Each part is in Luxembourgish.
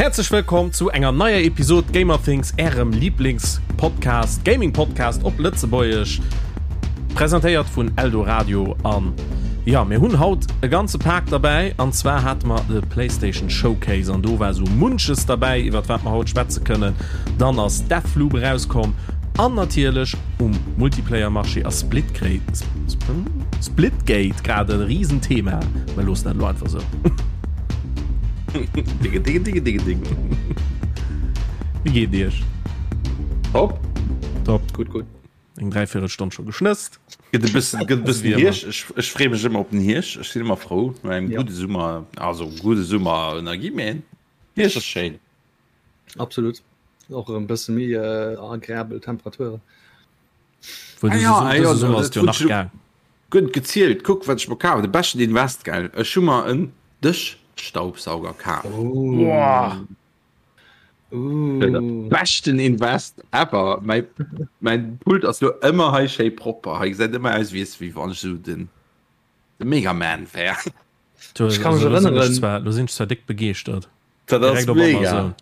Häerzlech wëllkomm zu enger neier Episod Gamerthings, ärem Lieblingspodcast, Gaming-Podcast op Lëtzebuergesch, presentéiert vun Eldoradio. An ja, mir hunn haut e ganze Pak derbäi, an zwar hate mer de PlayStation Showcase an do war sou munches derbäi, iwwert wat mer haut schwätze kënnen. Dann ass Deathloop erauskomm an natierlech um Multiplayer-Marché ass Splitgate grad e Risenthema. Mer loossen dat elo einfach sou. Digge, digge, digge, digge, digge. Wéi geet Iech? Top. Top. Gutt, gutt. Eng Dräiviertelstonn scho geschnësst. Gëtt e bëssen, gëtt e bëssen Hierscht. Ech, ech freeë mech ëmmer op den Hierscht. Ech sinn ëmmer frou no engem Ja. gudde Summer, also gudde Summer ënnergi, mee Hierscht ass schéin. Absolut. Och erëm bësse méi äh, agreabel Temperaturen. Wuel, Ah dëse ja, Sum- ah ja, dëse Summer dat ass jo hunn nach ech lo gaang. gutt gezielt. Kuck, wat ech mer kaf hunn. De beschten Invest, gell? Ech hu mer en Dëschstaubsauger kaf. Boah. De Uh. beschten Invest ever. Mäi, mäin Pult ass lo ëmmer hei schéi propper. Hei gesäit ëmmer aus, wéi es, wéi wann ech esou den, de Megaman wär. Du, Ech kann mech also, lo sinn ech erënneren. zwar, lo sinn ech zwar déck begeeschtert. Dat ass Direkt op mega. Amazon.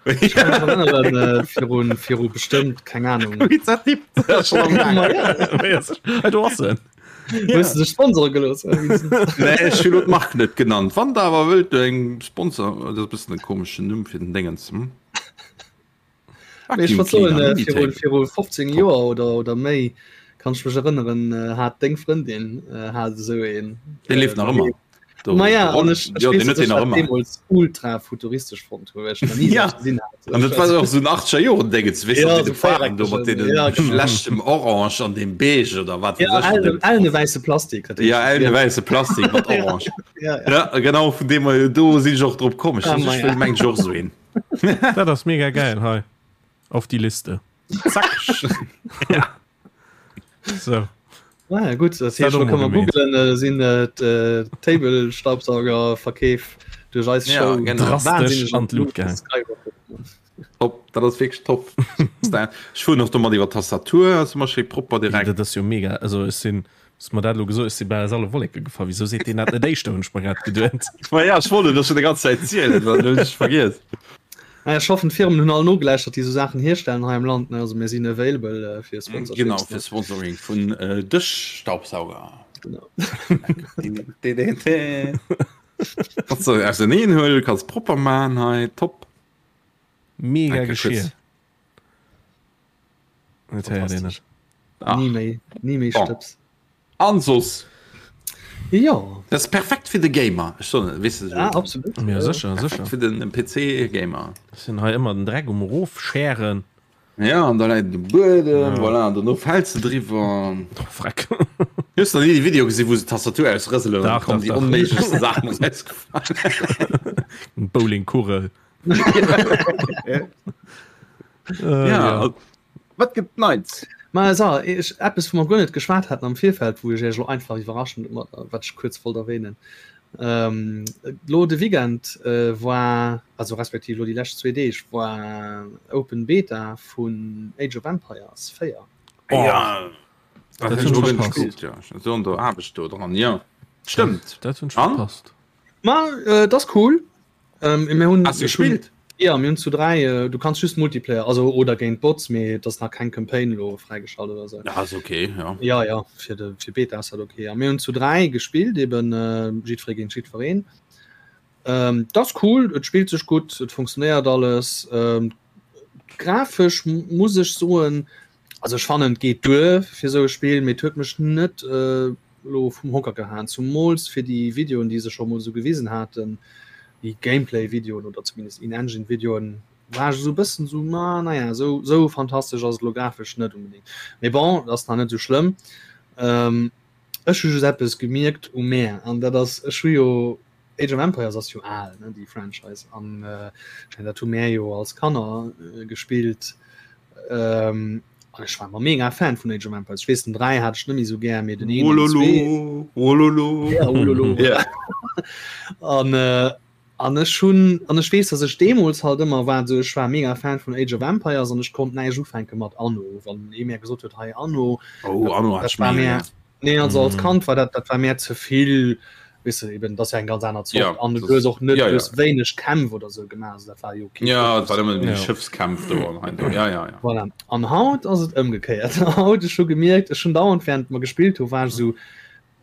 Ech kann mech erënneren, äh, virun, viru bestëmmt, keng Ahnung. Wéi dat tippt. Dat ass schon am Gaang. Ma ja. Hey, do ass en. Hues du sech sponsore gelooss? Nee, ech hunn lo d'Mark net genannt. Wann der awer wëllt eng Sponsor, dat ass e bëssen e komeschen Numm fir den Déngens. Hm? Mee ech Vacuum wollt soen, Cleaner, äh, viru, Minitable. viru 15 Top. Joer oder, oder méi, kann ech mech erënneren, äh, hat deng Frëndin äh, hat esou een. Dee leeft nach ëmmer. Do, Ma ja, de an Roll, ech, ech jo, weess, deen huet dass deen ech nach dat ëmmer. deemools ultra futuristesch fonnt hunn, well ech nach ni Ja, esou eppes gesinn hat. an dat war och esou en 80er Joren Déngens, weess Ja, de, esou de Faarwen do mat véiereckegen, deene ja, genau. schlechtem Orange an deem Beige oder wat Ja, weess ech. ellene, ellene wäisse Plastik. Dat Ja, ellene wäisse Plastik mat Orange. Ja, ja. Ja, genau, vun deem her, do sinn ech och drop komm. Ech Ah, ech ma ja. wëll mengen ech och esou een. Dat ass mega geil hei. Auf die Liste. Zack. Ja. So. Ah, ja, gut, das heescht, Dat lo kann man gemeet. googlen, äh, sinn äh, d'Table Staubsaugerverkeef duerch eis Ja, Show genau. Drastesch wahnsinnig an d'Lut gaang. skyrocket. Top, dat ass wierklech top. Ech fueren och domat iwwer d'Tastatur, ass ëmmer schéi propper direkt. Dat ass jo mega. Also ech sinn, hues mer dat elo gesot, ech si bal aus alle Wolleke gefall. Wisou seet deen dat net éischter, hunn ech mer grad geduet. Ma ja, ech wollt et der schon déi ganz Zäit zielen, dann hunn ech vergiess. Naja, ech hoffen d'Firmen hunn all nogelauschtert, déi esou Saachen hierstellen hei am Land. Ne? Also mir sinn available äh, fir Sponsorships. Genau, ne? fir Sponsoring vun äh, Dëschstaubsauger. Genau. Kannst du auserneen huelen, kannst propper man hei, top. Mega Danke, Geschirr. Chris. Dat héiert een net. Ach. Ni méi, ni méi Bon. Stëbs. An soss? Jo. Dat ass perfekt fir de Gamer. Ech soen et, weess de Ah, esou. absolut. Ja, sécher, Perfekt sécher. fir den PC-Gamer. Ech sinn hei ëmmer den Dreck um Erofschären. Ja, an da läit et um Buedem, Ja. voilà, an dono fäls de driwwer. Oh, Freck. Hues de nach ni déi Video gesinn, wou se d'Tastatur ausrëselen an Dach, da kommen dach, déi dach. onméiglechste Saachen erausgefallen? Bowlingkugel. Äh, Ja, ja. wat gëtt Neits? Ma so, ech, eppes wou mer guer net geschwat haten am Virfeld, wou ech iech elo einfach iwwerraschen, mat, wat ech kuerz wollt erwähnen. Ähm, lo de Weekend äh, war, also respektiv lo déi lescht zwee Deeg, war Open Beta vun Age of Empires 4. Oh, Ja, dat dat hunn hunn ech ech guer net verpasst. gespillt, ja. Ech war an der Aarbecht do dran, ja. Stëmmt. Dat hunn ech An? verpasst. Ma äh, dat ass cool. Ähm, mir hunn, Hast du ech hunn, gespielt? ja, mir hunn zu 3, äh, du kanns just Multiplayer, also oder géint Bots, mee et ass nach keng Campaign elo fräigeschalt oder sou. Ja, ass okay, ja. Ja, ja, fir de fir Beta ass dat okay. A mir hunn zu 3 gespillt, eben äh, jiddweree géint jiddwereen. Ähm, dat ass cool, et spillt sech gutt, et funktionéiert alles. Ähm, grafesch muss ech soen, also ech fannen et geet duer fir sou e Spill, mee et huet mech net äh, lo vum Hocker gehaen, zumools fir déi Videoen déi se scho mol sou gewisen haten, déi Gameplay Videoen oder zumindest In-Engine Videoen, war ech esou e bëssen sou, ma naja, sou sou fantastesch ass et lo grafesch net unbedingt. Mee bon, et ass nach net sou schlëmm. Ech hu just eppes gemierkt u mär, an dat ass, ech hu jo Age of Empires ass jo al, ne, déi Franchise, an ech mengen dat hu mär jo als Kanner gespillt. An ech war ëmmer mega Fan vun Age of Empires. Ech weess den 3 hat ech net méi sou gär, mee den 1 an den 2. Wololo, wololo. Ja, wololo. Ja. An an ech hunn an ech weess, datt ech deemools halt ëmmer war sou, ech war mega Fan vun Age of Empires an ech konnt näischt ufänke mat Anno. Wann ee mär gesot huet, hei Anno, Oh, Anno hat dat ech war mega mär gär. Nee, also als Kand war dat dat war mär ze vill. Weess de, eben, dat ass ja eng ganz aner Zort. Ja, an du hues och net ja, ja. wéineg Kämpf oder sou gemaach, also dat war jo okay. Ja, dat war ëmmer ja. Schëffskämpf do an hei do. Ja, ja, ja. Voilà. An haut ass et ëmgekéiert. Haut ech hu gemierkt, ech hunn dauernd während mer gespillt hu war ech sou,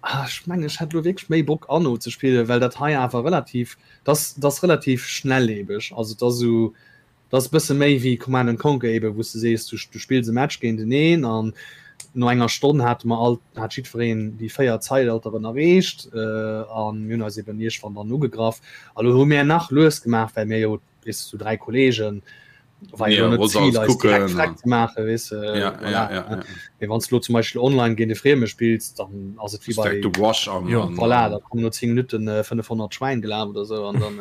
ah, ech mengen ech hätt lo wierklech méi Bock Anno ze spillen, well dat hei awer relativ, dat ass relativ schnelllebeg. Also dat ass sou, Dat ass e bësse méi wéi Command and Conquer eben, wou s de sees, du du spills e Match géinteneen an no enger Stonn hate mer all, hat jiddwereen déi 4 Zeitalteren erreecht a mir hunn eis eben iergendwann dann ugegraff. A lo hu mir nach lues gemaach, well mir jo, weess de, sou 3 Kolleegen, war jo lo net d'Zil, eis direkt freck ze maachen, weess de, voilà. Mee wann s de lo zum Beispill online géint e Frieme spills, dann ass et wéi bei, voilà, da kommen no 10 Minutten 500 Schwäin gelaf oder sou an dann.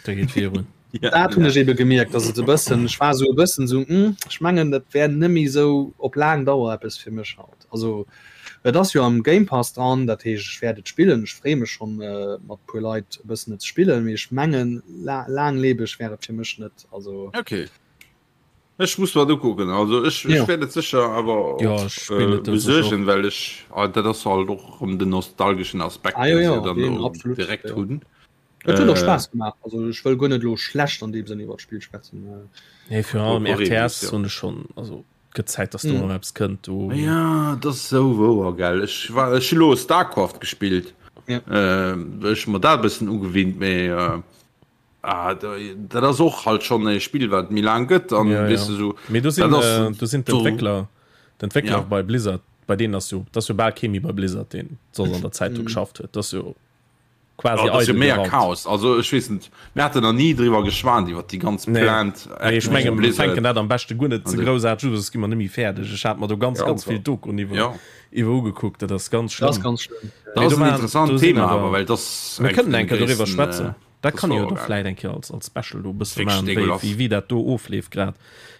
Da geet virun. Ja, dat hunn ech ebe gemierkt, dass et e bëssen, ech war sou e bëssen sou, hm, ech mengen dat wär net méi sou op laang Dauer eppes fir mech haut. Also et ass jo am Game Pass dran, dat heescht ech wäert et spillen, ech freeë mech schonn mat puer Leit e bëssen et ze spillen, mee ech mengen laanglebeg wär et fir mech net. Also okay. Ech muss mer et ukucken, also ech ech wäert et sécher awer ja, ech spillen et besuergen, well ech dat ass halt och erëm den nostalgeschen Aspekt, ah, jo, jo, deen se dann do direkt hunn. Et huet och Spaass gemaach. Also ech wëll guer net elo schlecht an deem Sënn iwwer d'Spill schwätzen. Nee, virun allem RTS hunn ech schonn, also gëtt Zäit, dass do erëm eppes kënnt do. Ja, dat ass esou wouer, gell. Ech war, ech hu lo Starcraft gespillt. Ja. Ech hu mer dat e bëssen ugewinnt, mee ah, dat ass och halt schonn e Spill, wat méi laang gëtt an Ja, weess ja. de sou. Mee do sinn, Dat ass do sinn do. d'Entwéckler, d'Entwéckler Ja. bei Blizzard, bei deenen ass jo, dat ass jo bal kee méi bei Blizzard, deen soss an der Zäit do geschafft huet. Dat ass jo. Quasi oh, eidel mega Chaos also ech weess net mir haten nach nie driwwer geschwat iwwer déi ganz nee. Plant nee, ech mengen mir fänken dat am beschte guer net ze groussaarteg un soss gi mer net méi fäerdeg ech hat mer do ganz ja, ganz vill Doku iwwer ja. iwwer ugekuckt dat ass ganz schlimm das ganz schlimm dat ass en interessant Thema awer well das mir kënnen eng Kéier doriwwer schwätzen äh, dat kann jo do vläit eng Kéier als als Special do bësse maachen wéi wéi wéi dat do ofleeft grad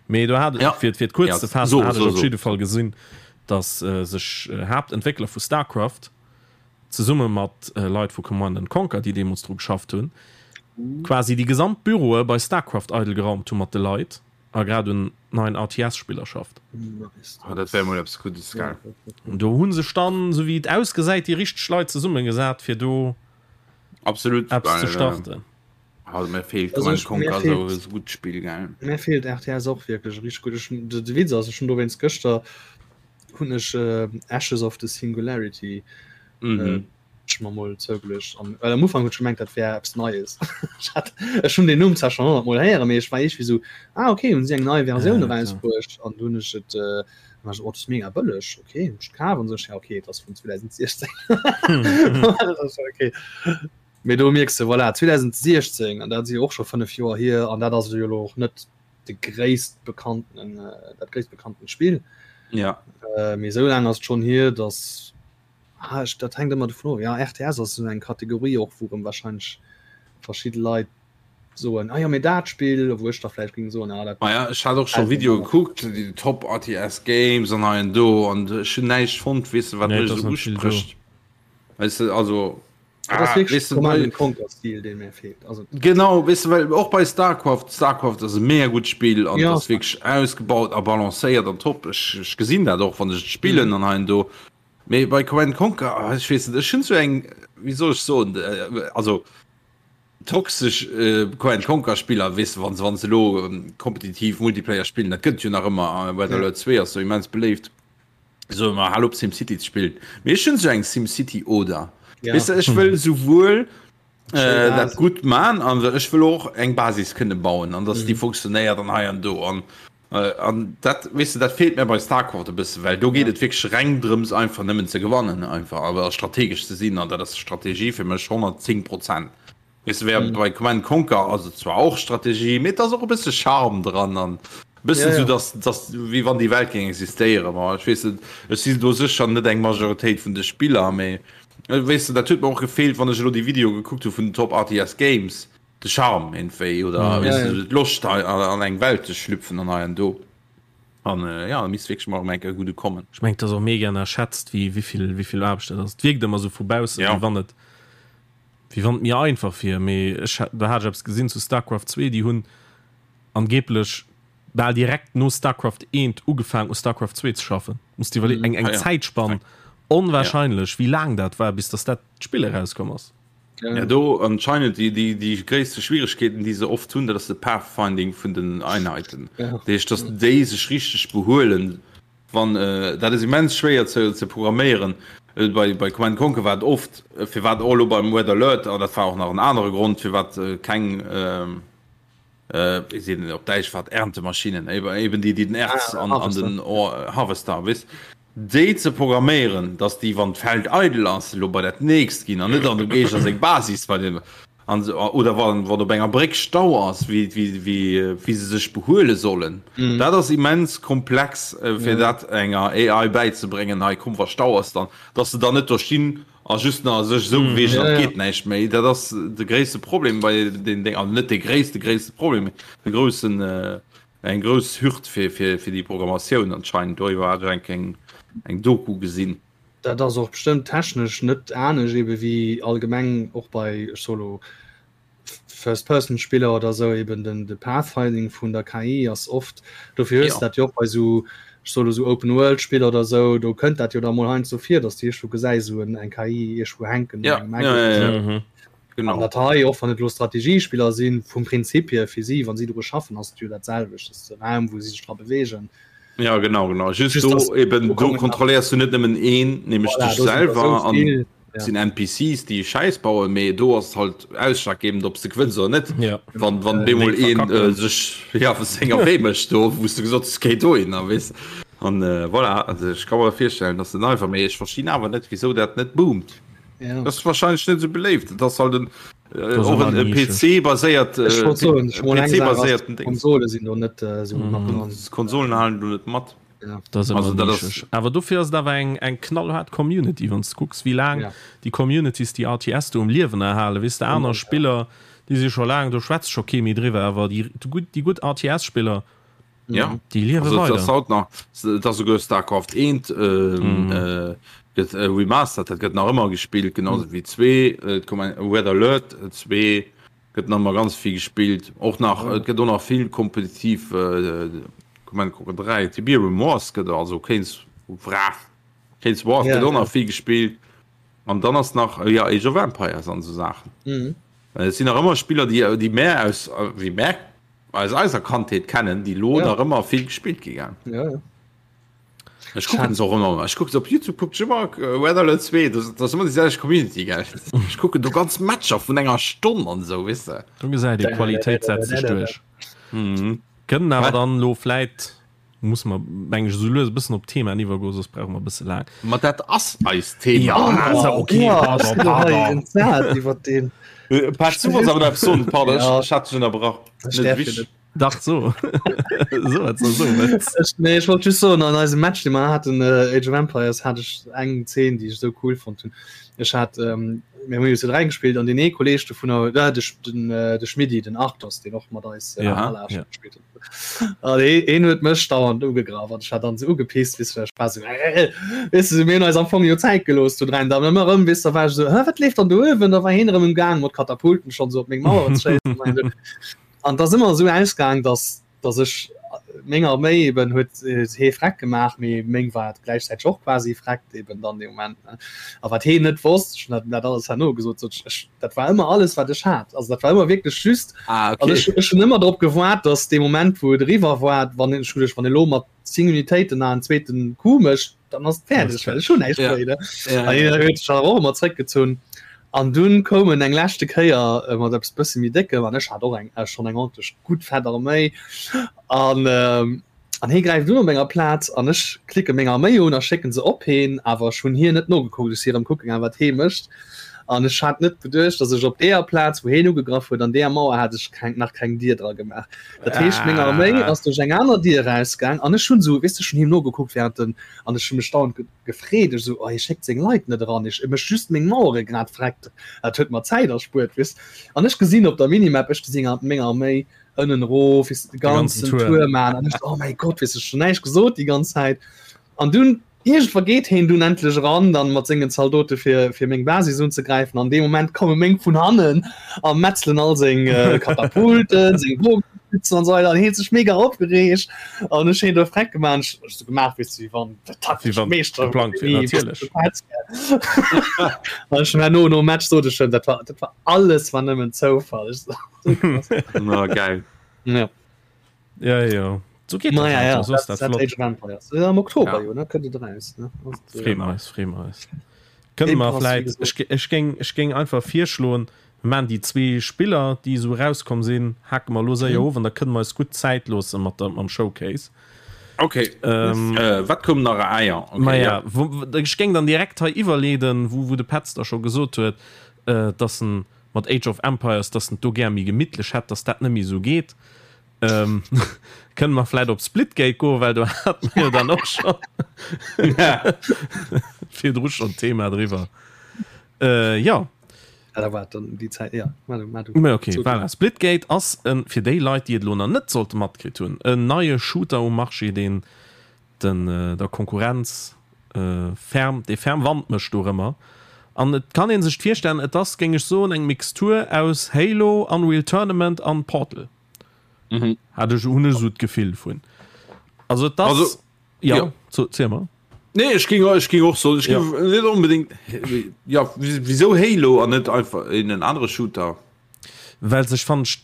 mee do hat ja. fir fir et kuerz ja. ze faassen so, hat ech so, op so. jidde Fall gesinn dass äh, sech äh, Haaptentwéckler vu Starcraft zesumme mat Leit vu Command and Conquer, déi deemools dru geschafft hunn, quasi déi gesamt Büroe bei Starcraft eidel geraumt hu mat de Leit a grad un neien RTS-Spiller schafft. Oh, dat wär mol eppes Guddes, gell? Do hu sech dann, esou wéi et ausgesäit, déi richteg Leit zesummegesat, fir do Absolut, eppes ze well, starten. also mir feelt Also Command ech, mir Conquer esou feelt, e gutt Spill, gell? mir feelt RTS och wierklech richteg gutt. Ech, de, de Witz ass, ech hunn dowéinst gëschter hunn ech Ashes of the Singularity ech mer mol zougeluecht an well am Ufank hunn ech gemengt dat wär eppes Neies. Ech hat ech hunn den Numm zwar schonn 100 mol héieren, mee ech war iergendwéi sou ah okay hunn si eng nei Versioun erausbruecht an du hunn ech et war ech oh dat ass mega bëlleg okay hunn ech et kaf an sou ech ja okay et ass vun 2016 okay. Mee do mierks de voilà 2016 an dat si jo och scho 5 Joer hier an dat ass jo elo och net de gréisst bekannten dat gréisst bekannten Spill. Ja. Äh, mee esou laang ass et schonn hier, dass ah, ech, dat hänkt ëmmer dovun of. Ja, RTS ass esou eng Kategorie och, wou erëm wahrscheinlech verschidde Leit soen, ah jo, mee dat Spill, wou ech da vläicht géing soen, ah dat Ma ja, ech hat och scho gefält mir Videoe manner. gekuckt, déi Top RTS Games an hei an do, an ech hunn näischt fonnt, weess de, wat Nee, mech et ass esou net vill do. usprécht. Weess de, also Dat ass ah, wierklech weess de, Command bei and Conquer Stil, dee mir feelt. Also Genau, weess de, well och bei Starcraft, Starcraft ass e mega gutt Spill an ja, ass wierklech ausgebaut a balancéiert an top. Ech, ech gesinn dat och, wann ech et spillen mhm. an hei an do. Mee bei Command and Conquer, ah, ech weess net, ech hunn sou eng, wéi soll ech soen, äh, also toxesch äh, Command and Conquer Spiller, weess de, wann se, wann se elo ähm, kompetitiv Multiplayer spillen, dat gëtt jo nach ëmmer, äh, Red Ja. Alert 2 ass sou immens beléift. So mal hal op SimCity ze spillen. Mee ech hunn sou eng SimCity oder. Ja. Weess de, ech wëll souwuel Schéi äh, dat Basis. gutt man an ech wëll och eng Basis kënne bauen an dass déi Mhm. funktionéiert an hei an do an äh, an dat weess de, dat feelt mir bei Starcraft e bësse, well do geet Ja. et wierklech reng drëms einfach nëmmen ze gewannen einfach awer strategesch ze sinn an dat ass Strategie fir mech 110 Prozent. Weess de, während Mhm. bei Command Conquer ass et zwar och Strategie, mee et ass och e bësse Charme dran an e bëssen Ja, sou, ja. dass, dass wéi wann déi Welt géing existéieren. Ma ech weess net, ech sinn do sécher net eng Majoritéit vun de Spiller, mee weess de, dat huet mer och gefeelt, wann ech elo déi Videoe gekuckt hu vun den Top RTS Games, de Charme iergendwéi oder Mhm. weess Ja, de, ja. d'Loscht hei an eng Welt ze schlüpfen an hei an do. An ja, da misst wierklech mol erëm eng Kéier e gudde kommen. Ech mengen, et ass och mega ënnerschätzt, wéi, wéi vill, wéi vill Aarbecht dat ass. Et wierkt ëmmer sou vu baussen, Ja. wéi wann et Wéi wann et mir einfach wier, mee ech do hat ech eppes gesinn zu Starcraft 2, déi hunn angeblech bal direkt no Starcraft 1 ugefaang u Starcraft 2 ze schaffen. Muss dir iwwerleeën, eng eng Zäitspann. Onwahrscheinlech, wéi laang dat war, bis dass dat Spill erauskomm ass. Ja, do anscheinend déi, déi, déi gréisste Schwieregkeeten, déi se oft hunn, dat ass de Pathfinding vun den Einheiten. Ja. Dat heescht, dass déi sech richteg behuelen, wann, äh, dat ass immens schwéier ze, ze programméieren. Äh, bei, bei Command Conquer war et oft, äh, firwat och elo beim Red Alert, an dat war och nach en anere Grond, firwat äh, keng, äh, wéi seet een op Däitsch, wat Erntemaschinen, eben déi, déi den Erz an, an den Harvester, weess, déi ze programméieren, dass déi, wann d'Feld eidel ass, elo bei dat nächst ginn an net an dem Géigner seng Basis bei dem, an oder wann, wann op enger Bréck Stau ass, wéi, wéi, wéi, wéi se sech behuele sollen. Dat ass immens komplex, fir dat enger AI bäizebréngen, hei komm, wa Stau ass, dann, dass se dann net do stinn A just nach sech esou beweegen, an et geet näischt méi. Dat ass de gréisste Problem bei den Déng, also net de gréisste gréisste Problem, mee de groussen, eng grouss Hürd fir fir fir déi Programmatioun anscheinend. Doriwwer hat ech eng eng Doku gesinn. Dat ass och bestëmmt technesch net anescht ebe wéi allgemeng och bei, ech soe lo, First-Person-Spiller oder sou eben den de Pathfinding vun der KI ass oft, dofir hues de dat jo och bei sou, ech soe lo sou Open-World-Spiller oder sou, do kënnt dat jo da mol heiansdo vir, datt s de iergendwou gesäis sou en eng KI iergendwou hänken an engem Eck oder sou. An dat hei, och wann et elo Strategiespiller sinn, vum Prinzip hier fir si, wa si dru schaffen, ass et jo dat selwecht, et ass de Raum wou si sech dra beweegen. Ja genau, genau. Just do eben, do kontrolléiers du net nëmmen een, nämlech dech selwer an. Ja. Sinn NPCs déi Schäiss bauen, mee do ass halt ausschlaggebend ob s de gewënns oder net. Ja. Wann wann bemol een äh, sech ja senger Wee mécht do wou s du gesot hues géi dohin a weess an äh, voilà also ech ka mer virstellen dass den einfach mee ech verstinn awer net wisou dat net boomt. Ja. Das ass wahrscheinlech net sou beléift. Dat ass halt en äh, Das ass och ëmmer en, en Nische. PC baséiert Ech äh, wollt soen, ech mol eng PC Saach ass, baséierten Dings. Konsole sinn do net äh, sou mat dran. Konsolen halen do net mat. Ja. Dat ass Also ëmmer dat ass nischeg. Awer dofir ass et awer eng, eng knallhaart Community, wann s de kucks, wéi laang Ja. déi Communities déi RTS do um Liewen erhalen. Weess de, aner Ja. Spiller, déi si scho laang, do schwätzt scho kee méi driwwer, awer déi gutt, déi gutt RTS-Spiller, Ja. déi liewe Also, et ass weider. haut nach, et ass souguer Starcraft 1 ähm, äh, gëtt äh, remastered, dat gëtt nach ëmmer gespillt, genauso wéi 2, äh, et koum eng Red Alert 2 gëtt nach ëmmer ganz vill gespillt, och nach, et gëtt och nach vill kompetitiv äh, Command Conquer 3, Tiberium Wars gëtt also Keynes Wrath, Keynes Wrath Ja, gëtt och ja. nach vill gespillt an dann ass nach äh, ja Age of Empires an esou Saachen. Mhm. Et sinn nach ëmmer Spiller, déi déi mär aus wéi mär aus eiser Kandheet kennen, déi lo Ja. nach ëmmer vill gespillt gi gell. Ja, ja. Ech kucken se och ëmmer, ech kucken se op YouTube kucken ech ëmmer Red Alert 2, dat ass ëmmer déi selwecht Community gell. Ech kucken do ganz Matcher vun enger Stonn an esou, weess de. Do gesäit ee, Qualitéit setzt sech duerch. Mhm. Kënnen awer dann elo vläit, musse mer meng ech esou lues e bëssen op d'Themaen iwwergoen, soss brauche mer e bësse laang. Ma dat ass eist Thema. Ja, also okay, pardon, pardon. Iwwer den. Pat, du wollts awer nach eppes soen, pardon, ech hat dech ënnerbrach. Ech däerf jo net. Dach so so wat so ech, nee, ech wollt just soen an eisem Match dee mer haten äh, Age of Empires hat ech eng Zeen déi ech sou cool fonnt hunn. Ech hat ähm, mir hunn jo zu 3 gespielt an den ee Kolleg dovunner äh, de, den, äh, de Schmiddi den Arthos deen och mat eis äh, Ja, Ala ja. gespielt huet. An hee, heen huet mech dauernd ugegraff an ech hat dann sou ugepisst weess du, ech war sou äh, weess du, mir hunn eis am Fong jo Zäit gelooss zu dräien, dann ëmmer erëm weess du, da war ech sou hä wat leeft dann do uewen, da war heen erëm um Gaang mat Katapulten schonn sou op meng Maueren ze schéissen. An et ass ëmmer esou ausgaang, dass, dass ech meng Arméi eben huet hee freck gemaach, mee meng war gläichzäiteg och quasi freckt eben dann dee Moment. A wat heen net wosst, ech hunn dat dat alles herno gesot, sot ech, ech, dat war ëmmer alles wat ech hat. Also dat war ëmmer wierklech just, Ah, also okay. ech, ech hunn ëmmer drop gewaart, dass dee Moment wou et eriwwer war, wann ech hunn, wann elo mat 10 Unitéiten nach en zweeten Coup mécht, dann ass et fäerdeg, well ech hunn näischt Ja. méi. Ne? Ja, An ja. hien huet sech awer och ëmmer zréckgezunn. An dunn koum en eng leschte Kéier äh, mat eppes bësse méi déckem an ech hat och eng äh, schonn eng ordentlech gutt fett Arméi. An ähm, an hie gräift un op menger Plaz an ech klicke meng Arméi un a schécken se op heen, awer ech hunn hien net nogekuckt, ech si erëm kucke gaang wat hee mécht. An ech hat net beduecht, dass ech op deeër Plaz, wou heen ugegraff huet, an deeër Mauer hat ech keng, nach keng Dier dra gemaach. Dat heescht, meng Arméi ass duerch eng aner Dier erausgaang an ech hunn esou, weess de, ech hunn him nogekuckt während den, an ech hu mech dauernd gefreet, ech esou, oh hie schéckt seng Leit net eran, ech, e mécht just meng Mauere grad vreckt, dat huet mer Zäit erspuert, weess. An ech gesinn op der Minimap, ech gesinn meng Arméi ënnen erof, weess de, de ganzen Tour maachen an ech esou, oh mäi Gott, weess de, ech hunn näischt gesot déi ganz Zäit. An dunn Iergendwa geet heen dunn endlech eran, dann mat sengen Zaldote fir fir meng Basis unzegräifen. An deem Moment komme meng vun hannen a metzelen all seng Katapulten, seng Bogenschützen. sitzen an so weiter an hie huet sech mega opgereegt an ech hunn do freck gemaach ech ech so gemaach wéi wéi wann der taktesch wann Meeschter geplangt wier, natierlech. An ech hunn herno nom Match sot ech him, dat war dat war alles war nëmmen Zoufall. Ech so, Na geil. Ja. Ja, ja. So geht Naja, das ja, also, so ist dat, dat dat flott. Age of Empires. Ja, am Oktober Ja. jo, ne, kënnt et eraus, ne? Also, Freeë mer eis, freeë mer eis. Kënne Game mer Pass, wéi vläit, gesot. ech, ech géing, ech géing einfach virschloen, mir maachen déi zwee Spiller, déi esou erauskomm sinn, hake mer elo séier Mhm. of an da kënne mer eis gutt Zäit loosse mat der, mam Showcase. Okay. Ähm, Äh, wat koum nach? Ah ja, okay, Maja, ja. wo, wo, ech géing dann direkt hei iwwerleeden, wou, wou de Petz da scho gesot huet, äh, dass en mat Age of Empires, dass en et do gär méi gemittlech hätt, dass dat net méi esou geet. Ähm, kënne mer vläit op Splitgate goen, well do hat mer jo dann och scho virdru schonn d'Thema driwwer. Äh, jo. Ja, da war dann déi Zäit, ja, ma du, ma du. Mä okay, So, voilà. Splitgate ass en, fir déi Leit, déi et elo nach net sollte matkritt hunn, en neie Shooter um Marché, deen den der Konkurrenz ferm, dee ferm Wand mécht dorëmmer. An et kann ee sech virstellen, et ass, géing ech soen, eng Mixtur aus Halo, Unreal Tournament an Portal. Mhm. Hat ech, hunn ech esou d'Gefill vun. Also et ass, Also, ja, ja. so, ziel mer. Nee, ech ging, ech ging och so, ech Ja. ging net unbedingt, ja, wieso Halo an net einfach in en anere Shooter? Well sech fand ech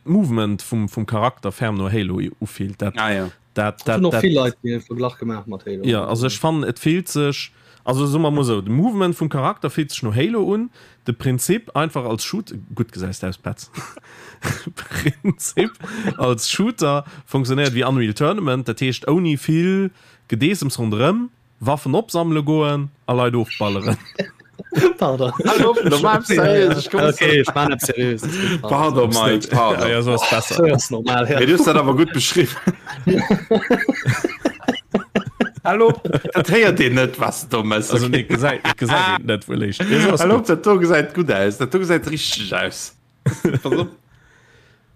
d'Movement vum, vum Charakter ferm no Halo ufillt. Dat, Ah, ja. dat, Dat hunn dat, och dat, vill Leit dee Verglach gemaach mat Halo. Ja, also ech fannen et fillt sech, also soe mer mol esou, de Movement vum Charakter fillt sech no Halo un, de Prinzip einfach als Shoot, gutt gesäis de aus Petz, Prinzip als Shooter funktionéiert wéi Unreal Tournament, dat heescht ouni vill Gedeessems ronderëm, Waffen opsammele goen a Leit ofballeren. Pardon. Okay, ech man net seriös. Pardon, Mike, pardon. Ja, so ass besser. So ass normal, ja. Mee du hues dat awer gutt beschriwwen. Hallo, dat héiert een net, was du do mëss. Also nee, gesäit, gesäit een net wuel éischt. Ja, so ass Hallo, gutt. dat do gesäit gutt aus. Dat do gesäit richteg aus. Pass op.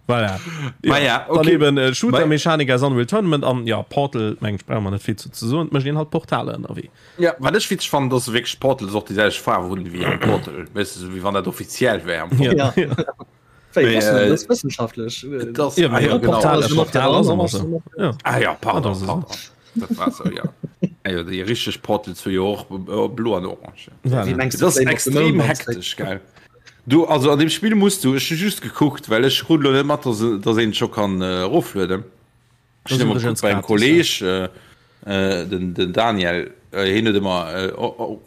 Voilà. Ma ja, Dann okay. eben äh, Shooter-Mechanik aus Unreal Tournament an ja, Portal, meng ich, brauche man net vill zu, zu soen, mécht een halt Portale ënnerwee. Ja, wat ech witzeg fannen, dass se wierklech Portals och déi selwecht Faarf hunn wéi am Portal. Weess de, sou wéi wann dat offiziell wär am Fong. Ja. Ja. Wéi, Mee, wosst du äh, dat ass wëssenschaftlech. Et ass, Ja, ah, ja, ja, genau. Portal, e Portal ass ëmmer sou. Ja. Ah ja, pardon, Ah, das ist pardon. Dat war sou, ja. Ah jo, déi richteg Portals hu jo och äh, blo an orange. Voilà. Wéi mengs du, Dat ass Flame of the extrem Moon hektesch, gell? Du, also an dem Spill muss du, ech hu just gekuckt, well ech krut lo net mat, dass, dass een et scho kann äh, eroflueden. Ech Das hunn ëmmer übrigens gekuckt bei engem gratis, Kolleg, äh, äh, den, den Daniel, äh, hien huet ëmmer äh,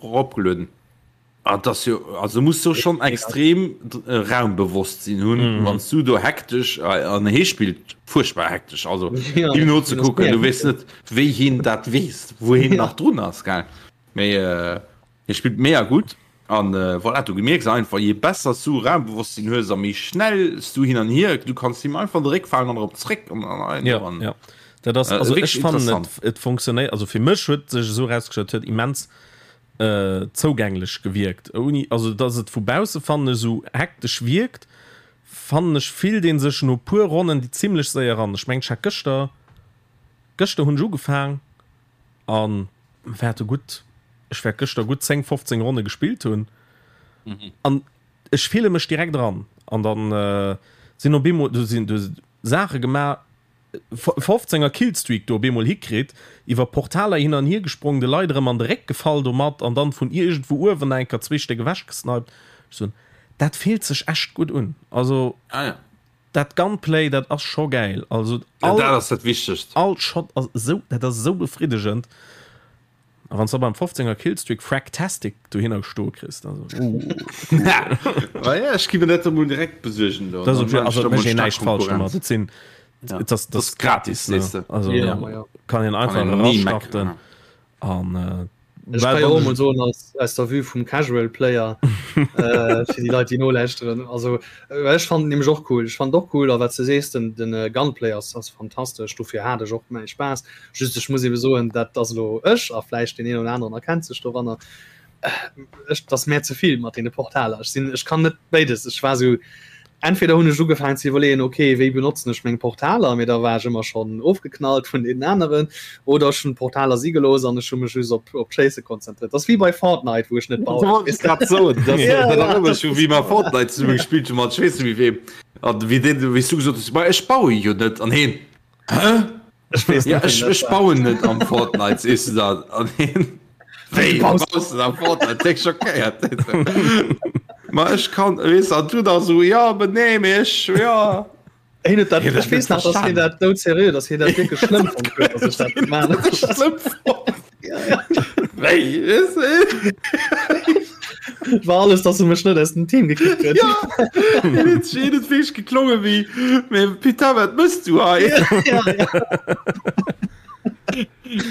eropgelueden. Ah, das jo, also muss du schon extrem äh, Raumbewosstsinn hunn, mm. wann du do hektesch äh, an hee spillt furchtbar hektesch, also Ja, him no ze das kucken, du merkt weess net wéi hien dat weess, wou hien Ja. nach drun ass, gell? Mee äh, hie spillt mega gutt an äh, voilà, du gemierks einfach, je besser du Raumbewosstsinn hues a méi schnell du hin an hier, du kanns him einfach an de Réck falen an erop zréck an, an, an, Ja, an. ja. Dat ass, Äh, also wierklech ech fannen et, interessant. et funktionéiert, also fir mech huet sech esou erausgestallt, huet immens zougänglech gewierkt ouni, also dass et vu bausse fannen ech esou hektesch wierkt, fannen ech fillt een sech no puer Ronnen déi zimlech séier eran. Ech mengen ech hat gëschter, gëschter hunn ech ugefaang an wäerte gutt, ech wäert gëschter gutt 10, 15 Ronne gespillt hunn an ech fille mech direkt eran an dann sinn op eemol, do sinn do Saache gemaach, 15 er Killstreak do op eemol hikritt, iwwer Portaler hin an hier gesprong, de Leit erëm an de Réck gefall domat an dann vun iergendwou uewen nach eng Kéier zwee Stéck ewech gesniped. Ech soen, dat fillt sech echt gutt un. Also Ah ja. dat Gunplay, dat ass scho gäil. Also Ja, all, dat ass dat Wichtegst. all Shot ass esou, dat ass esou befriddegend. A wann s de beim 15 er Killstreak Fragtastic dohinner gestoe kriss, also uh. Ah ja, ech gi mir dat emol direkt besuergen do. Das Dann ist, also ech da mol mécht een stark näischt falsch domat. Konkurrenz. Et sinn, Ja. et ass, Das das gratis, gratis, weess ne? de. Also Ja, ma ja. kann een einfach Kann een nie erastarten meckern. an äh, Ech well kann jo wann och ech- mol soen aus, aus der Vue vum Casual Player äh, fir déi Leit déi nolauschteren. Also äh, ech fand nämlech och cool. Ech fand och cool a wat du sees den, den äh, Gunplay ass, ass fantastesch. Dofir hat ech och mäi Spaass. Just ech muss ebe soen, dat ass elo ech a vläicht deen een oder aneren erkennt sech doranner. Äh, ech, dat ass mär ze vill mat deene Portaler. Ech sinn, ech kann net béides. Ech war sou. Entweder hunn ech ugefaangen ze iwwerleeën, ok, wéi benotzen ech meng Portaler, mee da war ech ëmmer schonn ofgeknallt vun deenen aneren, oder ech hunn d'Portaler si gelooss an ech hu mech just op op d'Schéisse konzentréiert. Dat ass wéi bei Fortnite, wou ech net bauen. Dat wollt ech grad soen, dat erënnert mech u wéi mer Fortnite zesumme gespillt hu mat ech weess net méi weem, an wéi deen, wéi s du gesot hues, ma ech baue jo net, an heen, Hä? Ech weess Ja, ech, ech bauen net am Fortnite, sees du dann. An hien, Wéi, du baust net am Fortnite? Déck schockéiert. Ma ech kann, weess du, an du da so, ja, aber nee, mee ech, ja. Hien huet dat, ech weess nach, dass hien dat doudserieux, dass hien dat wierklech schlëmm fonnt huet, dass ech dat gemaach hunn. Schlëmm fonnt. Wéi, weess du? Et war alles, dass e mech net aus dem Team gekickt huet. Ja, hien huet sech hien huet wierklech geklonge wéi, mee putain, wat mëss du hei? Ja, ja.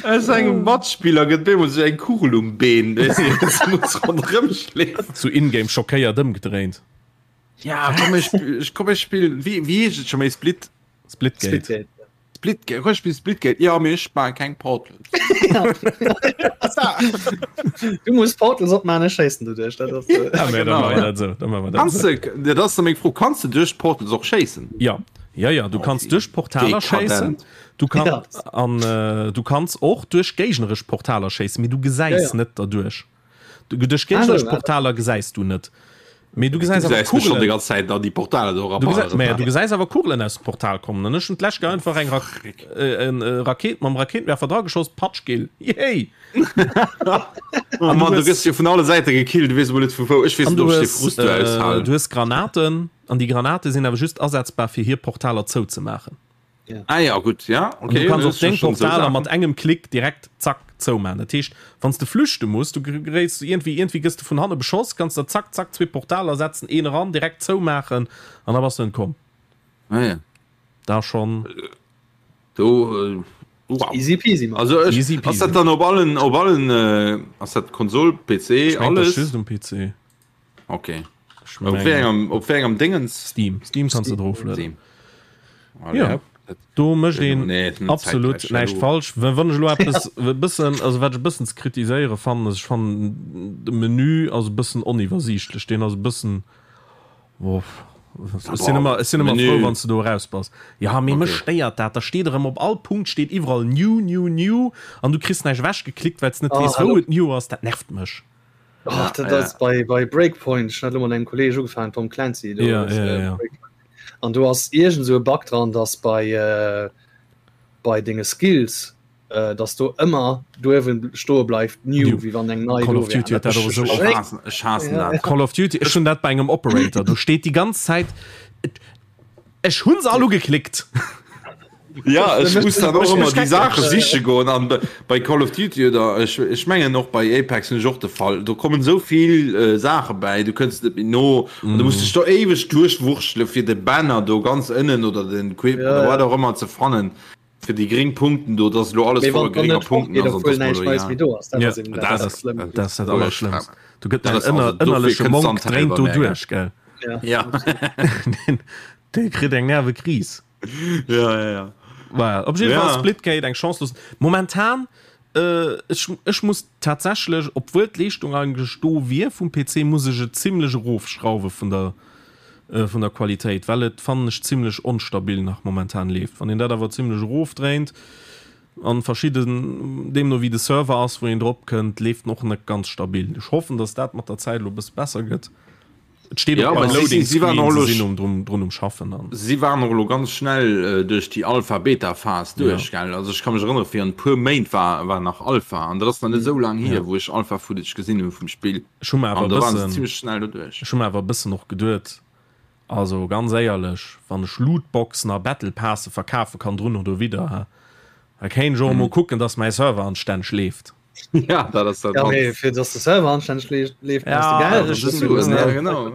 Aus engem Matspiller gëtt bemol sou eng Kugel um Been, weess du, se muss ronderëm schleefen. Sou in-game schockéiert ëmgedréint. Ja, komm, ech, komm, ech spillen, wéi, wéi heescht et scho méi, Split? Splitgate. Splitgate. Splitgate, komm, ech spillen Splitgate, jo, mee ech maache keng Portals. Du muss Portals opmachen, ech schéissen doduerch. Dat ass, äh, Ja, mä da maache mer dat esou, da maache mer dat Kanns esou. de, dat ass da meng Fro, kanns de duerch d'Portals och schéissen? Ja, ja, ja, du kanns duerch Portaler schéissen, Dekadent. du kann, Ja. an äh, du kanns och duerch géigneresch Portaler schéissen, mee du gesäis Ja, ja. net derduerch. Du, duerch géigneresch Ah, so, Portaler gesäis du net. Mee du gesäis Du awer gesäis mech schon déi Kugelen. ganz Zäit an déi Portaler do Du gesäis, eraballeren. mä du gesäis awer Kugelen aus dem Portal kommen. An ech hunn d'lescht Kéier einfach eng Rak äh, en äh, Raket mam Rakéitenwerfer drageschoss, patsch, Gill. Yay! Oh Mann, du gëss jo vun alle Säite gekillt, du weess emol net vu wou. Ech weess An net, du ob ech dee hues, Frust do äh, aushalen. du hues Granaten, an déi Granate sinn awer just asetzbar, fir hir Portaler zouzemaachen. Ah ja, gutt, ja, An okay. du kanns das och deng sind schon so Portaler mat Sachen. engem Klick direkt zack zoumachen. Dat heescht, wann s de flüchte muss, du geréits iergendwéi, iergendwéi gëss de vun hanne beschoss, kanns der zack, zack zwee Portaler setzen, een eran, direkt zoumaachen an da bass du entkomm. Ah ja. Da schonn. Do, äh, wow. Easy peasy, Mann. Also ech, Easy ass peasy. dat dann op allen, op allen, äh, ass dat Konsol, PC, Ech mengen, dat ass alles? just um PC. Okay. Ech Op wéi mengen. engem, op wéi engem Dingens? Steam. Steam kanns de droflueden. Steam. Allez, Ja. hopp. Dat- Do mécht een Nee, net absolut zeitgleich, näischt hallo. falsch. Wa- Wann ech elo eppes e bëssen, also wat ech e bëssen ze kritiséiere fannen, ass ech fannen de Menü ass e bëssen oniwwersiichtlech. Deen ass e bëssen, boah, ech sinn ëmmer, ech sinn ëmmer Menü. frou, wann s de do eraus bass. Ja, mee mech Okay. stéiert dat. Da steet erëm op all Punkt steet iwwerall new, new, new an du kriss näischt ewechgeklickt, well s net Oh, weess, wou hallo. et new ass. Dat nervt mech. Oh, dat ass bei, bei Breakpoint, ech hat elo mat engem Kolleeg ugefaangen, Tom Clancy, do Ja, ass, ja, äh, ja. Breakpoint. An do ass iergend esou e Bug dran, dass bei, äh, bei denge Skills, äh, dass do ëmmer duerwen stoe bleift new, New. wéi wann eng nei Call do of wär. Duty huet dat och esou Ech oft. haassen, ech haassen Ja. dat. Call of Duty, ech hunn dat bei engem Operator, do steet déi ganz Zäit, ech hunn se all ugeklickt. Ja, ech muss dann och ëmmer déi Saache siche goen an bei Call of Duty oder ech, ech mengen och bei Apex hunn ech och de Fall, do kommen esou vill äh, Saache bäi, du kënns net méi no an du muss dech do éiweg duerchwurschtele fir de Banner do ganz ënnen oder den Equipment Ja, oder ja. wat och ëmmer ze fannen, fir déi gréng Punkten do, dass elo alles Mee wann voller dann grénger net Punkten fortgeet, ass an obwuel dass mer näischt elo Neies egal. méi do ass, dat Ja, ass eben dat dat, ass dat Schlëmmt. dat ass dat Allerschlëmmst. Do gëtt Dat däin ass also, ënner, dofir ënnerleche kënns du Monk an dréint d'Helber do merken. duerch, gell? Ja. Ja. Deen, dee kritt eng Nervekris. Ja, ja, ja. Well, op jeden Ja. Fall Splitgate eng Chance loossen. Momentan äh, ech, ech muss tatsächlech, obwuel d'Leeschtung eigentlech do wier vum PC, muss ech et zimmlech erofschrauwe vun der äh, vun der Qualitéit, well et fannen ech zimmlech onstabil nach momentan leeft. Wann een dat awer zimmlech erofdréint an verschidden, deemno wéi de Server ass, wou een drop kënnt, leeft en och net ganz stabil. Ech hoffen, dass dat mat der Zäit elo e bësse besser gëtt. Et steet Ja, och beim aber sie, Loading sie, sie waren Screen, och se elo sinn um drun, drun um Schaffen an. Si waren och elo ganz schnell duerch déi Alpha-Beta-Phas Ja. duerch, gell? Also ech ka mech erënnere virun e puer Méint war war nach Alpha an dat ass nach net esou laang hier, Ja. wou ech Alpha-Footage gesinn hu vum Spill Ech hu mer awer an e do waren se bëssen, zimmlech schnell doduerch. ech hu mer awer e bëssen och geduet, also ganz éierlech, wann ech Lootboxen a Battle Passe verkafe kann drun oder widder, ha, da kéint ech och emol kucken, dass mäi Server anstänneg leeft. Ja, dat ass dat Ja, mee mannst. fir dass de Server anstänneg leeft, leeft brauchs de Ja, Geld. ech Dat ass Suen, ja, ja. genau.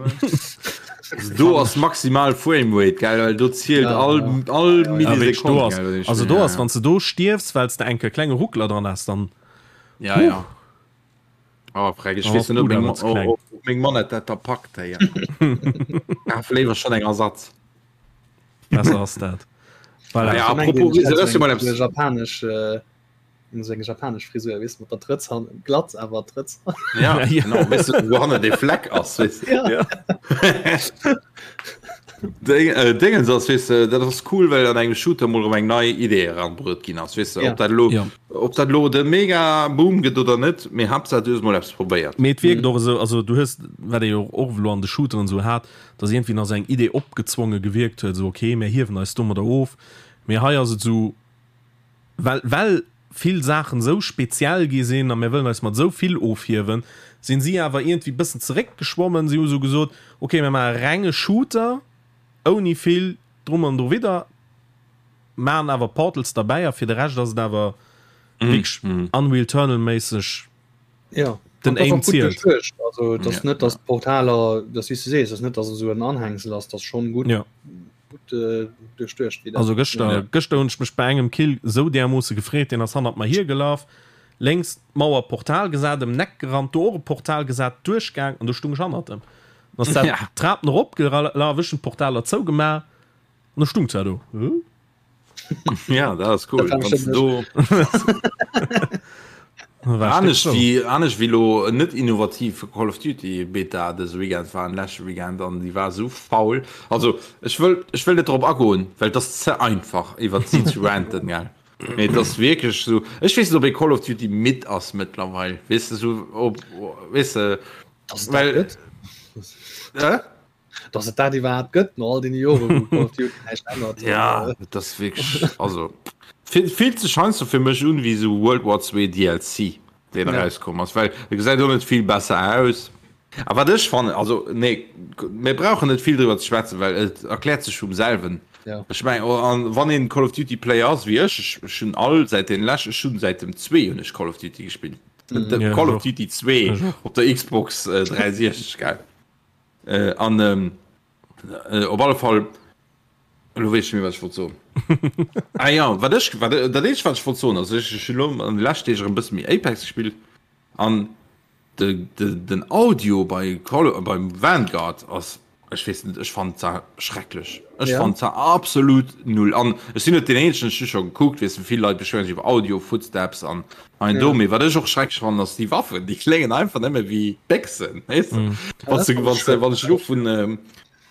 Also do ass maximal Framerate, gell, well do zielt Ja, all, ja. all Ja, ja. Ja, wierklech, do Millisekonn, ass, gell, wat ech also spill, do ja, ass, ja. wann s de do stierfs, well s de enke klenge Ruckler dran has, dann, Ja, huh, ja. Oh, freck, ech dann weess ass net, ob d'Bud meng, awer ze kleng. ob meng Manette dat da packt, hey. Kaf léiwer schonn eng Ersatz. Besser ass dat. Voilà. Ja, Ech mengen, apropos, ech hat dat ass jo sou mal eng eppes. japanesch, äh, Sou eng japanesch Frisur, weess mat der Trëtz hannen, glatt awer Trëtz. Ja, genau, weess du, wou hannen dee Fleck ass, weess du. Ja. Ja. Déngens ass, weess de, dat ass cool, well an engem Shooter mol erëm eng nei Idee eranbruet ginn ass, weess de, ob dat elo, ob dat elo de mega Boom gëtt oder net, mee Haaptsaach du hues mol eppes probéiert. Mee et wierkt och esou, also du hues, wat ee jo och elo an de Shooteren esou hat, dass iergendwéi nach esou eng Idee opgezwonge gewierkt huet, esou ok, mir hiewen eis domadder of, mee hei ass et esou, well, well vill Saachen esou speziell gi sinn a mir wëllen eis mat esou vill ofhiewen, sinn si awer iergendwéi bëssen zeréckgeschwommen. Si hu sou gesot, ok, mir maache renge Shooter ouni vill drum an drowidder, maachen awer Portals derbäi a fir de Rescht ass et awer wierklech Unreal Eternal-méisseg. Ja, Den an Aim zielt. Also dat ass net, datt d'Portaler, dat wéi s du sees, ass net, datt et esou en Anhängsel ass, dat ass schonn gutt. Ja. Gutt äh, duerchduecht. Wéi dat Also gëschter, Ja. gëschter hunn ech mech bei engem Kill esou därmoosse gefreet, deen ass hannert mer hiergelaf, lénks d'Mauer Portal gesat, ëm den Eck gerannt, do och e Portal gesat, duerchgaang an do stung ech hannert em. Dann ass dat Ja. d'Trapen eropgelaf, ech hunn d'Portaler zougemaach an da stung zwar do. Huh? Ja, dat ass cool. Dat war do anescht wéi anescht wéi lo net innovativ Call of Duty Beta dëse Weekend war an leschte Weekend an déi war sou faul. Also ech wëll ech wëll net drop agoen, well et ass ze einfach iwwer si ze ranten gell. Mee et ass wierklech sou ech weess net ob ee Call of Duty midd ass mëttlerweil weess de sou ob weess de Dass et dat well gëtt. äh? Dass et dat iwwerhaapt gëtt no all deene Joren, wou Call of Duty näischt ännert. Ja, et ass wierklech, also fillt sech heiansdo fir mech un wéi esou World War 2 DLC, deen Ja. erauskomm ass, well e gesäit och net vill besser aus. A wat ech fannen, also nee, mir brauchen net vill driwwer ze schwätzen, well et erkläert sech vum selwen. Ja. Ech meng, oh, an wann een Call of Duty Player ass wéi ech, ech, ech hunn all säit den lescht, ech hunn säit dem 2 hunn ech Call of Duty gespillt. Mhm. Ja, Call ech of och. Duty 2 Ech och. op der Xbox 360, gell. Äh, an ähm, äh, op alle Fall lo weess ech net méi wat ech wollt soen. Ah ja, wat ech wat dat eenzegt wat ech wollt soen ass ech ech hunn lo an de leschten Deeg erëm e bësse méi Apex gespillt an de de den Audio bei Call beim Vanguard ass ech weess net ech fannen zwar schrecklech. Ech Ja. fannen zwar absolut null an ech sinn net deen eenzegen ech hu scho gekuckt weess de vill Leit beschwéieren sech iwwer Audio Footsteps an hei an do Ja. mee wat ech och schrecklech fannen ass déi Waffen déi kléngen einfach nëmme wéi Béchsen weess de Mm. wann Ja, du dat wann ass du wann ech elo vun ähm,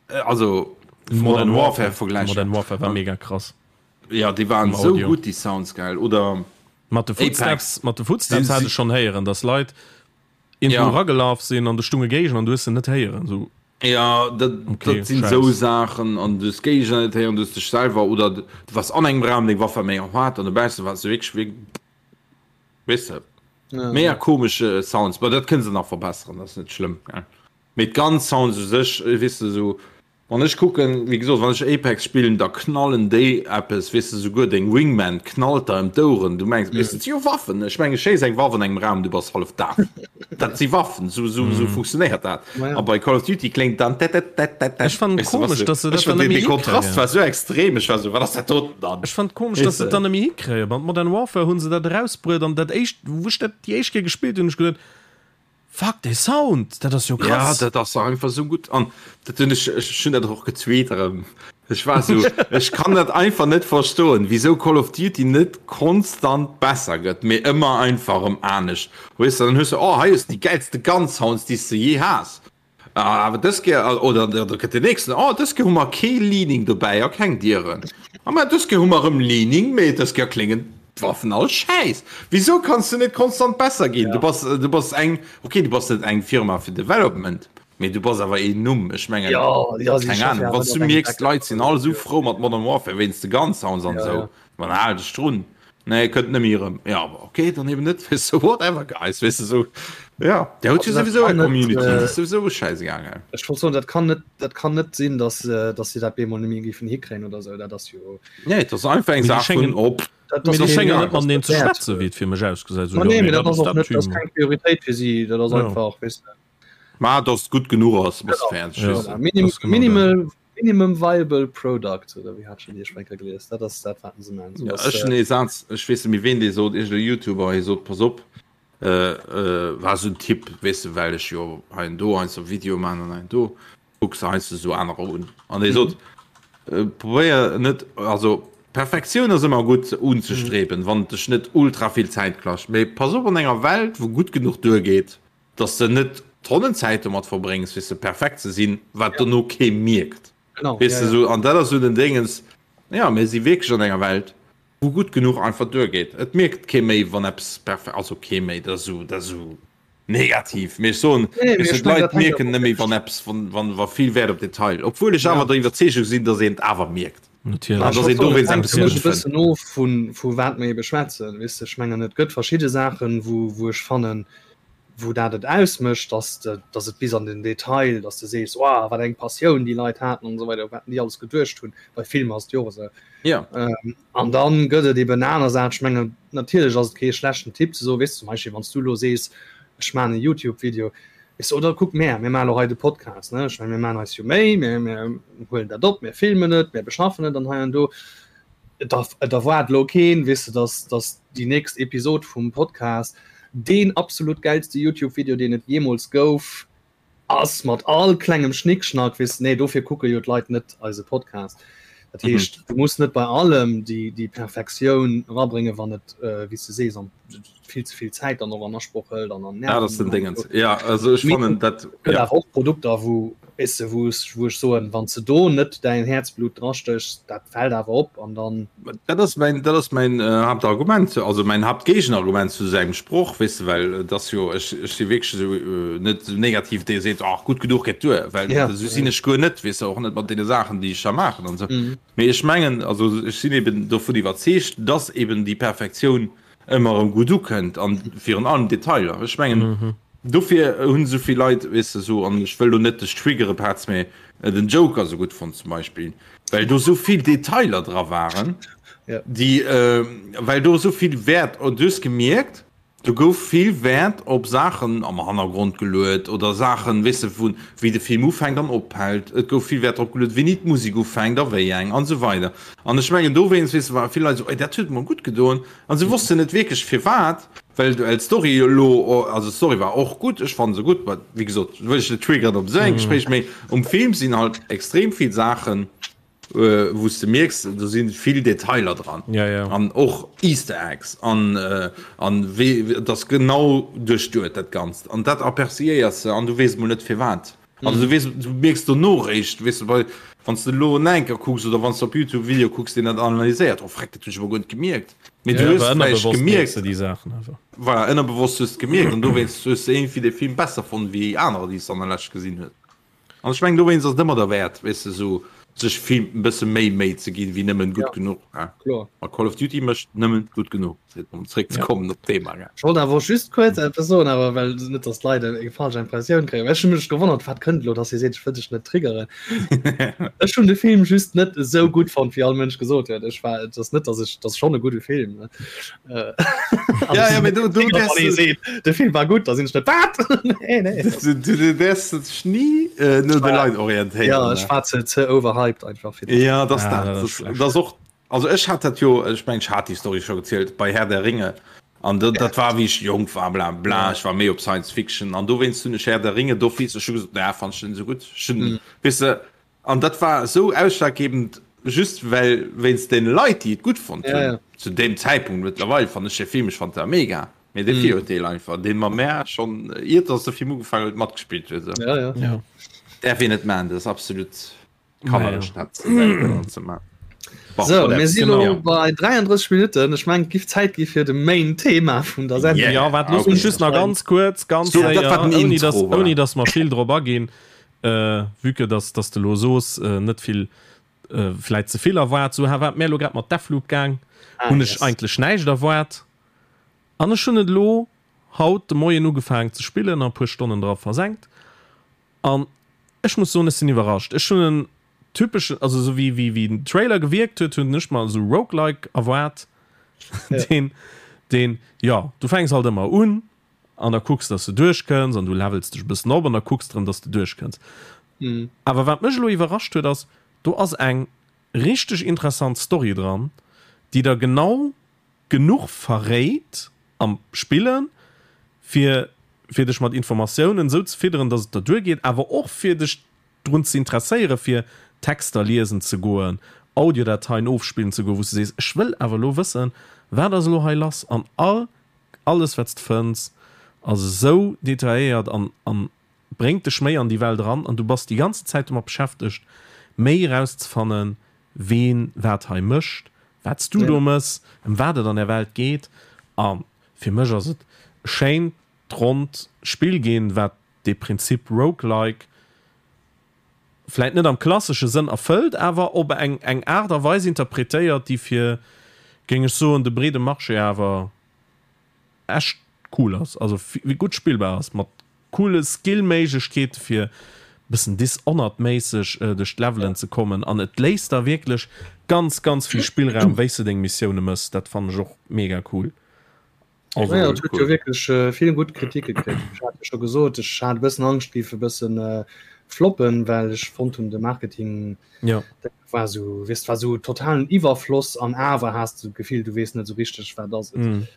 äh, also vu Modern Modern Warfare Warfare vergläichen Modern Warfare war mega krass ja déi waren vum esou Audio. gutt déi Sounds gell oder Mat de Apex Footsteps mat de Footsteps sinn hat si ech schonn héieren dass Leit Irgendwo Ja. eragelaf sinn an do stunge Géigner an du hues se net héieren. So, Ja, dat, okay, dat sinn esou Schäiss. Saachen an du hues Géigner net héieren, du hues dech selwer oder du waars an engem Raum, deng Waff war mega haart an dobausse waars du wierklech wéi, weess de, Ja. mega komesch Sounds. Bon, dat kënne se nach verbesseren, dat ass net schlëmm, gell. Mee d'Gun Sounds u sech, weess de, esou Wann ech kucken, wéi gesot, wann ech Apex spillen, da knallen déi eppes, weess de, souguer deng Wingman knallt der ëm d'Oueren, du mengs, weess de, et si jo Waffen, ech mengen, schéiss eng Waff an engem Raum, du bass hallef daf, dat si Waffen, sou, sou, sou funktionéiert dat. Ma ja. A bei Call of Duty kléngt dann tät-tät-tät-tät-tät, Ech fannen weess de, was komesch, du, dass se dat ech dann den, net méi de Kontrast hikréien. war sou extrem, ech war sou, wat ass dat doten dann, Ech fannen komesch, dass weess se de. et dann net méi hikréien. Bei Modern Warfare hu se dat erausbruet an dat éischt, wou ech dat déi éischt Kéier gespillt hunn, hunn ech geduet, Fuck, dee Sound, dat ass jo Ja, krass! dat ass einfach sou gutt an dat hunn ech, ech hunn dat och getweet erëm. Ech war sou, ech kann dat einfach net verstoen, wisou Call of Duty net konstant besser gëtt, mee ëmmer einfach erëm anescht. Weess de, dann hues de, oh hei hues de déi gäilste Gun Sounds, déi s de jee has. Awer dës Kéier, oder da kënnt den nächsten, oh dës Kéier hu mer kee Leaning dobäi a keng Dieren. A mä dës Kéier hu mer erëm Leaning, mee dës Kéier kléngen d'Waffen all schäiss. Wisou kanns du net konstant besser ginn? Du bass, du bass eng, okay, du bass net eng Firma fir Development, mee du bass awer een Numm. Ech mengen, Ja, ja, si keng schaffen Ahnung, ja wann net s op du engem mierks, Backup d'Leit sinn all esou oder frou mat Modern Warfare wéinst de Gun Sounds an Ja, esou, ja. dann hal dech drun. Nee, kënnt net méi erëm. Ja, awer okay, dann eben net, weess de, whatever guys, weess de, esou, ja, der huet jo Also dat souwisou kann eng net, Community, äh, dat ass souwisou schäisegal, gell. Ech wollt soen, dat kann net, dat kann net sinn, dass, äh, dass si dat bemol net méi géifen hikréien oder esou, dat ass jo. Nee, et ass einfach eng Mee déi Saach vun schéngen, op. Dat mee ass déi och schéngen egal, net mateneen dat ze wäert. schwätzen, wéi et fir mech ausgesäit. Esou, Ma jo, nee, nee, mee dat dat ass ass och dat net, dat ass Team. keng Prioritéit fir si, dat ass Ja. einfach, weess de. Ma dass et gutt genuch ass, bass Genau. fäerdeg, Ja, weess de. Voilà. Minim, dat ass genau dat. minimal, minimum viable product, oder wéi hat schon déi Schwenker gelies, dat ass dat, wat se man. So Ja, ass, ech hunn äh, ee Saz, ech weess net méi ween dee sot, iergendee YouTuber, hie sot, pass op, äh, äh, war esou en Tipp, weess de, well ech jo hei an do heiansdo Videoe man an hei an do, kucks de heiansdo esou anerer un an dee sot, Probéier net, also Perfektioun ass ëmmer gutt unzestreben, wann et dech net ultra vill Zäit kascht, mee pass op an enger Welt wou gutt genuch duergeet, dass de net Tonnen Zäit domat verbréngs fir se perfekt ze sinn, wat dono kee mierkt. Genau, Weess ja, de ja. sou, an dat ass sou den Déngens, ja mir si wierklech an enger Welt, wou gutt genuch einfach duergeet. Et mierkt kee méi, wann eppes perfe-, also kee méi, dat ass sou, dat ass sou negativ, mee ech soen, Nee, mee weess de, ech mengen, d'Leit dat hänkt mierken awer net méi, wann eppes, wann, wann, wa vill Wäert op Detail, obwuel ech Ja. awer der Iwwerzeegung sinn, datt een et awer mierkt. Natierlech. An Ech datt wollt een soen, et dowéinst hänkt eppes fir mech gutt e fënnt. bëssen of vu, vu wat mer ebe schwätzen, weess de. Ech mengen, et gëtt verschidde Saachen, wou, wou ech fannen, wou dat et ausmécht, dass de, dass et bis an den Detail, dass de sees, Wow, wat eng Passioun déi Leit haten an esou weider, wat déi alles geduecht hunn. Bei Filmer ass et jo och esou. Ja. Ähm, an dann gëtt et eben aner Saachen. Ech mengen, natierlech ass et kee schlechten Tipp ze soen, weess de, zum Beispill, wann s du elo sees, ech maachen e YouTube-Video, weess de, oder kuck mär, mir maachen elo hei de Podcast, ne? Ech mengen, mir maachen eis jo Méi, mir, mir huelen dat op, mir filmen et, mir beschaffen et an hei an do. Et et erwaart elo keen, weess de, dass, dass déi nächst Episod vum Podcast deen absolut gäilste YouTube-Video, deen et jeemools gouf, ass, mat all klengem Schnickschnack, weess de. Nee, dofir kucke jo d'Leit net eise Podcast. Dat heescht, du muss net bei allem déi, déi Perfektioun erabréngen, wann et, wéi s de sees, an vill ze vill Zäit dann och an Asproch hëlt an an Ja, dat ass den Dingens. Ja, also ech fannen dat. Gëtt Ja. awer och Produkter, wou, weess de, wou ech, wou ech soen, wann s de do net däin Häerzblut drastéchs, dat fält awer op an dann. Dat ass mäin, dat ass mäin Haaptargument, also mäin Haaptgéigenargument zu sengem Sproch, weess de, well et ass jo, ech, ech si wierklech esou net esou negativ, dee seet, ach gutt genuch geet duer, well Ja. esou sinn ech guer net, weess de, och net mat deene Saachen, déi ech da maachen an esou. Mee ech mengen, also ech sinn eben dovun iwwerzeegt, dass eben déi Perfektioun ëmmer erëm gutt ukënnt an virun allem Detailer. Ech mengen dofir hunn esou vill Leit, weess de, esou, an ech wëll lo net dech triggere Petz, mee den Joker esou gutt fonnt zum Beispill, well do esou vill Detailer dra waren, déi, well do esou vill Wäert, du hues gemierkt, Do gouf vill Wäert op Saachen am Hannergrond geluet oder Saachen, weess de, vu wéi de Film ufänkt an ophält. Et gouf vill Wäert drop geluet, wéini d'Musek ufänkt a wéi eng an esou weider. An ech mengen dowéinst, weess de, ware vill Leit esou, Ey, dat huet mer gutt gedoen. An se wossten net wierklech firwat, well d'Story elo, also d'Story war och gutt, ech fannen se gutt, mä wéi gesot, wëll ech net triggeren op esou engem Gespréich, mee um Film sinn halt extrem vill Saachen, wou s de mierks, do si vill Detailer dran ja, ja. an och Easter Eggs an, äh, an wéi dat genau duerchduet dat Ganzt an dat aperciéiers de an du weess mol net firwat. Also du weess, du mierks dono réischt, weess de, bei wann s de elo en enker kucks oder wann s de op YouTube e Video kucks, deen dat analyséiert, oh freck, dat hunn ech emol guer net gemierkt. Mee du Ja, hues awer vläicht ënnerbewosst mierks gemierkt, de déi Saachen awer. voilà, ënnerbewosst hues de gemierkt an dowéinst hues de iergendwéi de Film besser fonnt wéi anerer, déi s de an der Lescht gesinn hues. An ech mengen dowéinst ass et ëmmer derwäert, weess de, esou sech vill e bësse méi Méi ze ginn, wéi nëmmen gutt genuch. Ja, kloer. A Call of Duty mécht nëmmen gutt genuch, fir om zréck ze kommen op d'Thema. Ech wollt awer och just kuerz eppes soen, awer well net datt d'Leit eng falsch Impressioun kréien, well ech hu mech gewonnert, wat kënnt elo, datt hie seet, ech wëll dech net triggeren. Ech hunn de Film just net esou gutt fonnt, wéi all Mënsch gesot huet. Ech war, et ass net, datt ech, et ass schonn e gudde Film, ne. Ja, ja, du, du, du, de Film war gut, da sinn net wat nee, nee. Du, du, du wärst dech nie äh, no de Leit orientéieren. Ja, ech war ze, ze overhyped einfach fir Ja, das, ah, dat, das, das, das och also ech hat dat jo ech meng hat die Story schon gezielt bei Herr der Ringe an dat, dat war wie ich jong war bla bla ich war méi op Science Fiction an do wéinst hunn ech Herr der Ringe do fies ech gesot na fand ich den so gut schon mm. wis du An dat war esou ausschlaggebend just well wéinst den Leit déi et gutt fonnt hunn. Ja, ja. Zu deem Zäitpunkt, mëttlerweil fannen ech de Film, ech fand dat mega, mee de Virurteel einfach deen mer mär schonn iert dass de Film ugefaangen huet matgespillt huet esou. Ja, ja. Ja. Däerf een net maachen, dat ass absolut Naja. kannerlech dat ze maachen. Bon, So, whatever. mir si Genau. lo bei 33 Minutten. Ech mengen, et giff Zäit gi fir de Main Thema vun der Sendung. Yeah. Ja, waart, looss Okay. mech just nach ganz kuerz, ganz So, dat séier, war den ouni Intro, dass, voilà. ouni dass mer vill drop aginn, Vue que dass dass de lo soos, net vill, vläit ze vill erwaart, sou war et mär lo grad mat Deathloop gaang, hunn ech eigentlech näischt erwaart an ech hunn et elo haut de Moien ugefaangen ze spillen a puer Stonnen dra versenkt an ech muss soen, ech sinn iwwerrascht. Ech hunn en typeschen, also sou wéi wéi wéi den Trailer gewierkt huet, hunn ech mer esou Roguelike erwaart, deen deen, jo, du fänks halt ëmmer un An da kucks dass de duerchkënns an du levels dech e bëssen op an da kucks de rëm dass de duerchkënns. Awer wat mech elo iwwerrascht huet ass, do ass eng richteg interessant Story dran, déi der genau genuch verréit am Spillen, fir fir dech mat Informatiounen esou ze fidderen, dass et der duergeet, awer och fir dech drun ze interesséieren, fir Texter liesen ze goen, Audiodateien ofspillen ze goen, wou s de sees, ech wëll awer elo wëssen, wat ass elo hei lass an all Alles wat s de fënns ass esou detailléiert an an bréngt dech méi an déi Welt eran an du bass déi ganze Zäit domat beschäftegt. méi erauszefannen, ween wat hei mécht, wat s du do mëss, ëm wat et an der Welt geet. A fir mech ass et e schéint, ronnt Spill ginn, wat dee Prinzip Roguelike vläit net am klassesche Sënn erfëllt, awer op eng eng Aart a Weis interpretéiert, déi fir, géing ech soen, de breede Marché awer echt cool ass, also gutt spillbar ass, mat coole Skill-Méiglechkeete fir bëssen Dishonored-méisseg duerch d'Levelen ze kommen an et léisst der wierklech ganz ganz vill Spillraum wéi s de deng Missioune mëss. Dat fannen ech och mega cool. Also, ja, huet jo wierklech äh, vill gutt Kritike kritt. Ech hat jo scho gesot, ech hat e bëssen Angscht, géif e bëssen äh, floppen, well ech fonnt hunn de Marketing ja. dat war so, weess, war so totalen Iwwerfloss an awer has du d'Gefill, du weess net sou richteg, wat ass et. Mm.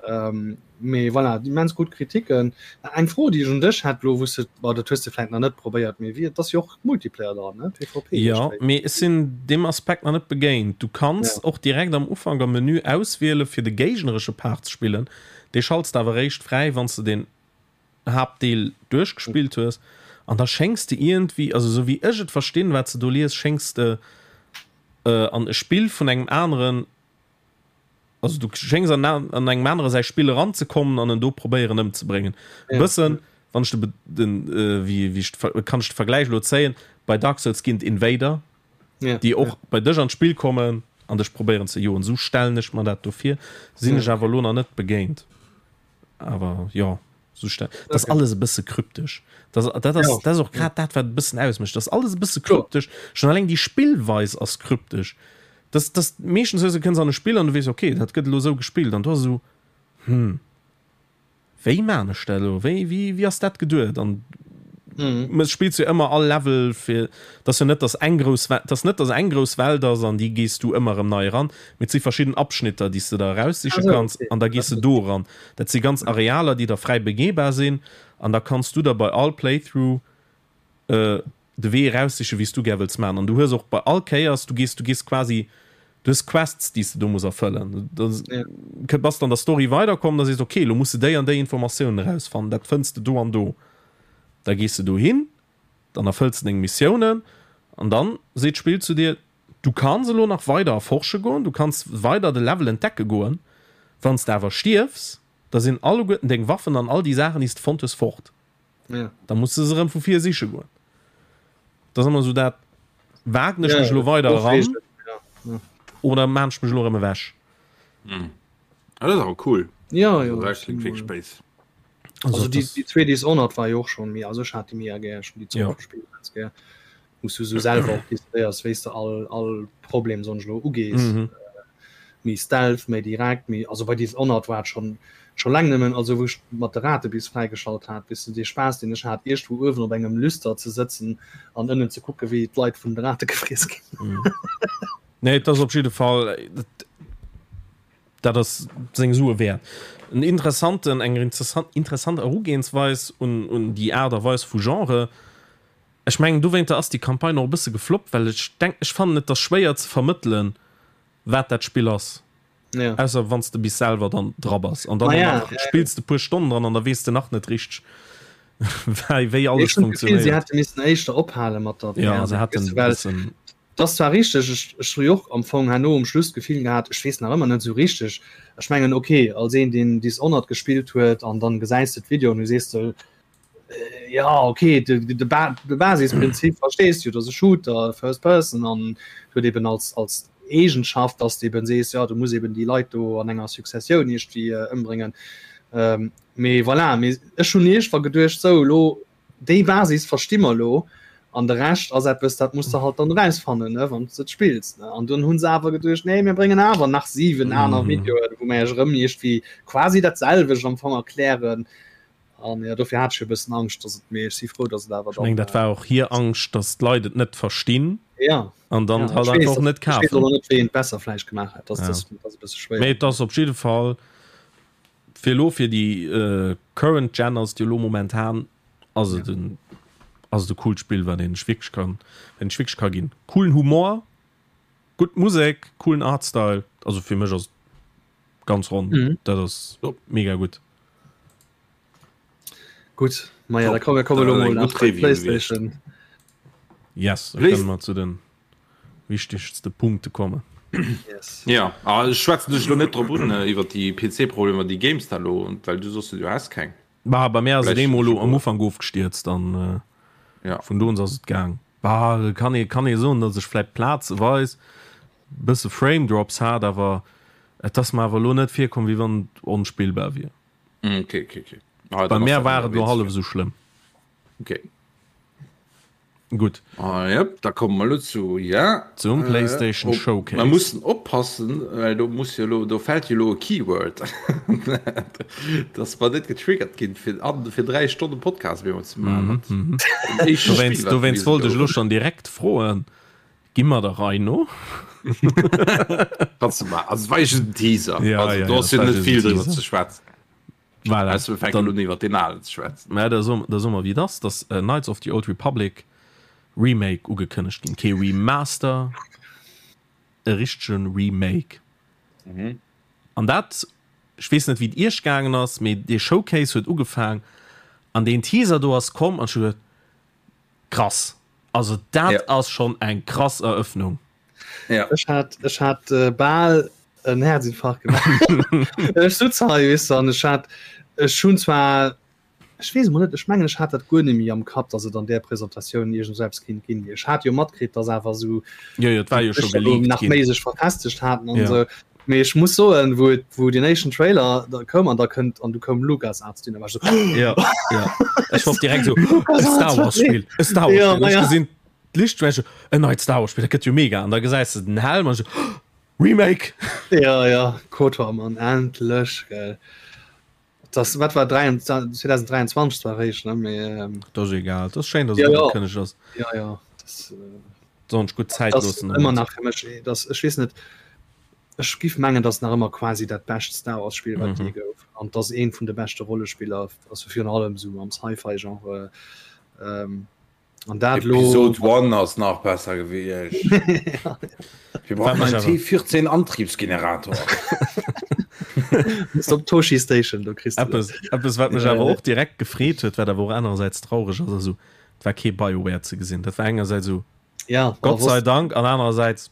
Ähm, mee voilà, immens gutt Kritiken. Eng Fro, déi ech un dech hätt lo, wou s de, bon, dat hues de vläit nach net probéiert, mee wéi, et ass jo och Multiplayer dran, ne? PvP. Jo, mee ech sinn deem Aspekt nach net begéint. Du kanns ja. och direkt am Ufank am Menü auswiele fir de géigneresche Part ze spillen. Dee schalts de awer eréischt fräi, wann s de den Haaptdeel duerchgespillt hues. An da schéngs de iergendwéi, also esou wéi ech et verstinn, wat s de do lies, schéngs de äh, an e Spill vun engem aneren Also du schéngs an, an engem anere säi Spill eranzekommen an en do probéieren ëmzebréngen. E ja. bëssen, wann ech de, den, äh, wéi, wéi ich, kann ech de Vergläich lo zéien, bei Dark Souls ginn d'Invader, ja. déi och ja. bei dech an d'Spill kommen an dech probéieren ze joen. Sou stellen ech mer dat do vir. Sinn ja. ech awer lo nach net begéint. Awer jo. So dat okay. alles e bësse kryptesch. Das, dat ass, ja. dat ass och grad dat, wat e bëssen ausmécht. Das alles e bësse kryptesch. Schon alleng déi Spillweis ass kryptesch. Das, das meeschtens hues du kënns an e Spill an du weess okay, dat gëtt elo sou gespillt an du ass esou hm, wéi maan ech dat elo? Wéi, wéi, wéi ass dat geduet? An mhm. spillst du ëmmer all Level fir dass jo net dass eng grouss dass net dass eng grouss Welt ass an déi gees du ëmmer erëm nei eran, mee et si verschidden Abschnitter, déi s de der eraussiche kanns an da gees de do eran. Dat si ganz Arealer, déi da fräi begehbar sinn an da kanns du der bei all Playthrough de Wee eraussichen, wéi s du gär wëlls maachen. An du hues och bei all Kéiers, du gees, du gees quasi, du hues Quests, déi s de do muss erfëllen. Da bass de an der Story weiderkomm, da sees de, okay, elo muss de déi an déi Informatiounen erausfannen, dat fënns de do an do. Da gees de dohin, dann erfëlls de deng Missiounen an dann seet d'Spill zu dir, Du kanns elo nach weider erforsche goen, du kanns weider de Level entdecke goen. Wann s de awer stierfs, da sinn alleguerten deng Waffen an all déi Saachen, déi s de fonnt hues, fort. Ja. Da muss de se erëm vu vir siche goen. Dat ass ëmmer esou dat, Wagen ech mech elo weider eran oder maan ech mech elo erëm ewech? Ah, dat ass awer cool. Ja, ja. Dat klingt wierklech béis. Also, also déi, déi zwee Dishonored war jo och schon méi, also ech hat déi mega gär, ech hun déi ja. gespielt ganz gär. Wou s du sou selwer och decidéiers, wéi s de all, all Problem sonst lo ugees. Mhm. Äh, méi stealth, méi direkt, méi, also bei Dishonored war et schon, schon läng nëmmen, also wou ech mat de Rate bis fräigeschalt hat, bis du dee Spaass, deen ech hat, iergendwou uewen op engem Lüster ze sëtzen an ënnen ze kucke wéi d'Leit vun de Rate gefriess ginn. Mhm. Nee, et ass op jidde Fall, Dat ass seng Sue wäert. En interessanten, eng interessant, interessant Erugehensweis un, un déi Aart a Weis vu Genre. Ech mengen, dowéinter ass déi Campagne och e bësse gefloppt, well ech denk, ech fannen et ass schwéier ze vermëttelen, wat dat Spill ass. Ja. Ausser wann s de bis selwer dann dra bass. An dann Ma och ja, nach ja, ja. spills de puer Stonnen dran an da weess de nach net richteg, wei, wéi alles Ech hunn d'Gefill, si funktionéiert. hätte missen éischter ophale mat der Ja, VR. se hätten Weess e du, well bëssen. Et ass zwar richteg, ech, ech hu jo och am Fong herno um Schluss d'Gefill gehat, ech weess nach ëmmer net esou richteg. Ech mengen, ok, als een, deen Dishonored gespillt huet an dann gesäis de d'Videoen, du sees de, jo, ok, de, de, Ba-, de Basisprinzip verstees du, et ass e Shooter, First Person an huet eben als, als Eegenschaft, dass de eben sees, jo, du muss eben déi Leit do an enger Successioun iergendwéi ëmbréngen. Mee voilà, mee ech hunn iergendwa geduecht, sou, elo Déi Basis versti mer elo, an de Rescht ass eppes, dat muss de halt dann erausfannen, ne, wann s de et spills. Ne. An dunn hu se awer geduecht, nee, mir bréngen awer nach 7 aner Videoen, wou mer iech erëm iergendwéi quasi dat selwecht am Fong erklären. An jo, dofir hat ech e bëssen Angscht, dass et, mee ech si frou, dass et awer Ech mengen, dann. dat war och hir Angscht, dass d'Leit et net verstinn Ja, an dann ja, halt ech weess, einfach net ech weess kafen. och net, wéi een et besser vläicht gemaach hätt. Dat Ja. ass, dat ass e bësse schwéier. Mee et ass op jidde Fall Fir elo fir déi current Gen ass et jo elo momentan ass et en ass et e coolt Spill wat een sech wierklech kann wat een sech wierklech ka ginn. Coolen Humor, gutt Musek, coolen Artstyle, also fir mech ass et ganz ronn, dat ass mega gutt. Gutt, maja da komm mir komme lo mol nach bei d'Playstation. Yes, da kënne mer zu den. wichtegste Punkte kommen. Yes. Ja, ah, ech schwätzen dech lo net drop un äh, iwwer déi PC-Problemer, déi GameStar lo, well du soss du has keng. Bah, bei mir ass et eemol lo am Ufank ofgestierzt an äh, ja. vun do un ass et gaang. Bah, kann ee kann ee soen, datt ech vläit plazeweis bësse Frame Drops hat, awer et ass mer awer lo net virkomm, wéi wann et onspillbar wier. Mm, okay, okay, okay. Ah, bei mir war et lo hallef esou schlëmm. Okay. Gutt. Ah, yep, da komme mer lo zu, ja. Zum äh, PlayStation äh, Showcase. Mer mussen oppassen, well do muss jo lo, do fält jo lo e Keyword. Dass mer net getriggert ginn, fir, an, fir 3 Stonnen Podcast méi ze maachen. Mm -hmm. Dowéinst, dowéinst wollt ech lo schon direkt froen, gi mer der Rei no? Kannst du mal, also war just en Teaser. Ja, also, ja, do ja, ass jo das war net just vill en driwwer Teaser. ze schwätzen. Voilà. Weißt du, wir fänken Dann- lo iwwer den alen ze schwätzen. Mä da soe da soe mer wéi et ass, dass äh, Knights of the Old Republic Remake ugekënnegt ginn. Kee Remaster, e richtegen Remake. Mhm. An dat, ech weess net wéi et iech gaangen ass, mee dee Showcase huet ugefaang an deen Teaser do ass komm an ech hu geduet, krass, also dat Ja. ass schonn eng krass Erëffnung. Ja. Ech hat, ech hat äh, bal en Herzinfarkt gemaach. Ech sutz hei, weess du, an ech hat, ech hunn zwar, ech weess emol net, ech mengen, ech hat dat guer net méi am Kapp, dass et an där Presentatioun iergend esou eppes kéint ginn. Ech hat jo matkritt, dass awer esou Jo, jo, et war jo scho geleakt nach ginn. méi sech verfestegt haten an Ja. esou. Mee ech muss soen, wou et, wou den éischten Trailer da koum an da kënnt an du koum LucasArts dunn, da war ech esou, Ja, ja. Ech war och direkt esou, e Star Wars Spill, e Star Wars Ja, Spill. Ech ja. gesinn d'Lichtschwäche, en neit Star Wars Spill, dat gëtt jo mega. An da gesäis de den Helm an ech esou, Remake! Ja, ja, KOTOR, Mann, endlech, gell. Das, wat war 2023 zwar réischt, ne, mee, ähm, Dat ass egal, dat ass schéin, dass Ja, et ja. ugekënnegt ass. ja, ja, das, äh, Sollen sech gutt Zäit das loossen ëmmer domat. nach fir mech, das, ech weess net, ech giff mengen, dass nach ëmmer quasi dat bescht Star Wars Spill, wat Mhm. je gouf, an dass eent vun de beschte Rollespiller, also virun allem sou am Sci-Fi-Genre, ähm, An dat lo Episode 1 ass nach besser gewiescht. Wir brauchen Wat einen mech awer- T14 Antriebsgenerator. Muss op Toshi Station, do kriss du dat. Eppes, eppes wat mech awer och direkt gefreet huet, wat awer och anerersäits traureg ass, ass esou, et war kee BioWare ze gesinn. Dat war engersäits esou, Ja, Gott sei Dank, an anerersäits,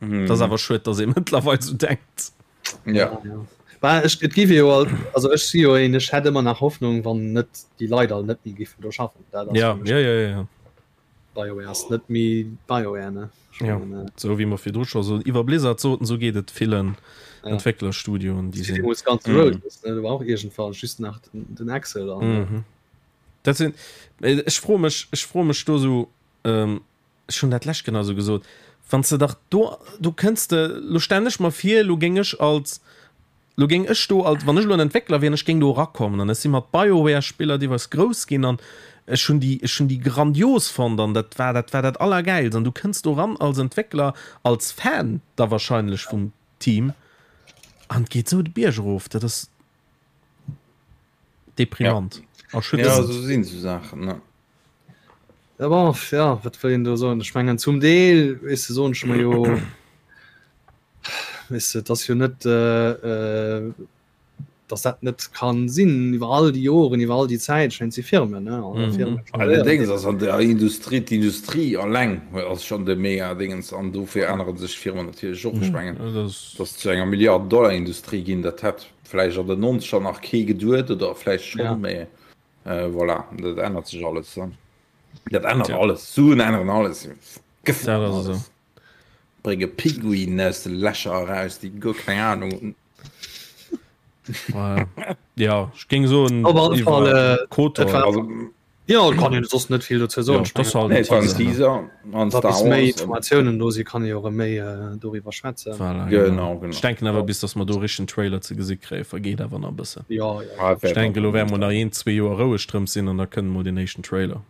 Mhm. dat ass awer schued, dass ee mëttlerweil esou denkt. Ja. Ja. Bah, ech, et giff jo all, also ech si jo een, ech hätt ëmmer nach Hoffnung, wann net déi Leit all net méi giffen do schaffen. Dat ass Ja, fir mech ja, ja, ja, ja. BioWare ass net méi BioWare, ne? Ech Ja. mengen, äh, Sou wéi mer virdru scho so iwwer Blizzard soten, sou geet et villen Ja. Entwécklerstudioen, déi sinn. Deemools Guns N' Mhm. Roses, ne? Do war och iergendwann just nach den, den Axl an, Mhm. Dat sinn, ech froe mech, ech froe mech do sou, ähm, ech hunn dat d'lescht genau sou gesot, wann s de dach do, do kënns de, lo stellen ech mer vir, lo géing ech als, lo géing ech do als, wann ech elo en Entwéckler wier an ech géing do erakommen an ech si mat BioWare-Spiller deelweis grouss ginn an ech hunn déi, ech hunn déi grandios fonnt an dat war, dat war dat Allergäilst an du kënns do eran als Entwéckler, als Fan da wahrscheinlech vum Team an et geet sou de Bierg erof, dat ass deprimant, Ja, erschütternd. sou sinn sou Saachen, ne. Ja, bon, ja, wat wëll een do soen? Ech mengen zum Deel, weess de, soen ech mer jo, weess de, et ass jo net, äh, dass dat net kann sinn iwwer all déi Joren, iwwer all déi Zäit, ech mengen, et si Firmen, ne, an Mhm. Firmen Allerdéngs ass an der Industrie, d'Industrie alleng ass schonn de mega Dingens an dofir ännere sech d'Firmen natierlech och. Ech mengen, Das dass zu enger Milliarden-Dollar-Industrie ginn, dat hätt vläicht an den Nonzeger nach kee geduet oder vläicht schonn, Ja. mee Voilà, dat ännert sech alles. Dat ännert alles. Suen änneren alles. Dat ass esou. Brénge Pinguinen aus de Lächer eraus, déi guer keng Ahnung hunn. Ja, ech géing soen, Op alle Fall, iwwer KOTOR. et war- Also, Jo, et kann een soss net vill dozou soen. Ja, Ech dat ass mengen, halt nee, et war en Teaser, ne? Teaser an wa Star bis méi Wars. Informatiounen do sinn, kann ee jo erëm méi doriwwer schwätzen. Voilà, genau. Genau, genau. Ech denken awer, bis datt mer do e richtegen Trailer ze gesi kréien, vergeet awer nach e bëssen. Jo, jo. Ah, Ech denken, elo wäerte mer nach een, zwee Joer roueg drëms sinn an da kënnt mol deen éischten Trailer.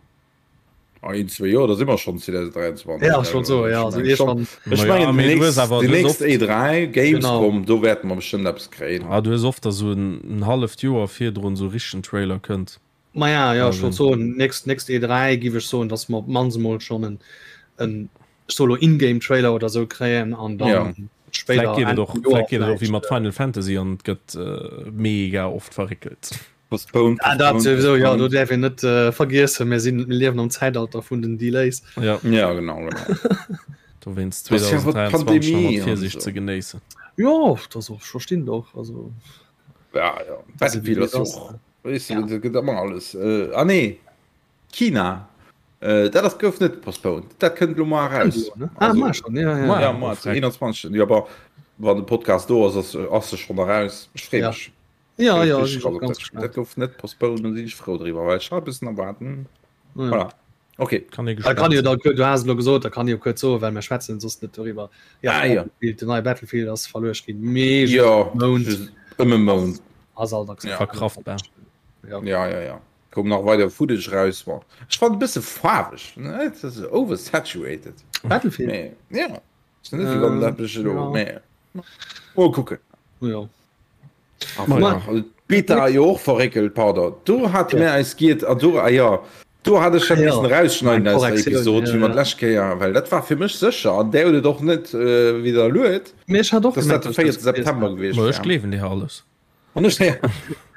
Ah, een, zwee Joer, da si mer schonn 2023. Ja, ech wollt soen, ja, also iergendwann. Ech Ma ja, mengen, mee déi du hues nächst, awer, déi du hues nächst oft, E3, Genau. Gamescom, do wäerte mer bestëmmt eppes kréien. ah, du hues oft, datt esou en, en halleft Joer virdrun esou e richtegen Trailer kënnt. Ma ja, ja, ech wollt Also, soen, nächst, nächst E3 giff ech soen, datt mer op d'mannst emol schonn en, en ech soe lo In-Game-Trailer oder esou kréien an Ja. dann spéider vläicht geet Enn et och, vum Joer vläicht geet et och wéi vläicht. mat Final Fantasy an et gëtt mega oft verréckelt. Postponed, Ah, dat postponed, souwisou, ja, do postponed. däerf een net äh, vergiessen, mir sinn, mir liewen am Zäitalter vun den Delays. Ja. Ja, genau, genau. Dowéinst 2023 nach mat Virsiicht ze genéissen. Jo, dat ass och, ech verstinn et och, also. Ja, ja, Battlefield ass jo och, weess de, dat gëtt ëmmer alles. Ah nee, China, dat ass, gouf net postponed, dat kënnt elo mar eraus. Ah, mar schon, ja, ja. Ja, mar, 21. Jo, bon, wann de Podcast do ass, ass, ass se schonn eraus. Ech freeë mech. Ja, ja, ganz dat gouf net postponed, do sinn ech frou driwwer, well ech hat e bëssen erwaarden. Voilà. Okay. Kann ee gespannt kann jo da du has lo gesot, da kann jo kuerz soen, well mir schwätzen soss net doriwwer. Ja, ah, ja. Den neie Battlefield ass verluecht ginn. Mee ja, Mount ëm e Mount. Ass alt ja. verkraftbar. Ja. ja, ja, ja. Koum nach weider Footage raus. War. Ech fand e bësse faarweg, ne? Dat ass oversaturated. Battlefield? Nee. Ja. Ist net, wéi wann dat mech elo. Nee. Mol kucken. Ja. Beta jo och verréckelt, pardon. Do hate mir eis giet an do, ah jo, do hat ech dat missen erausschneiden aus der Episod, wéi mer d'lescht Kéier, well dat war fir mech sécher an där huet et och net widderluet, Mee ech hat och dass dat de 4. September gewiescht wär. Ech gleewen dir alles. An ech,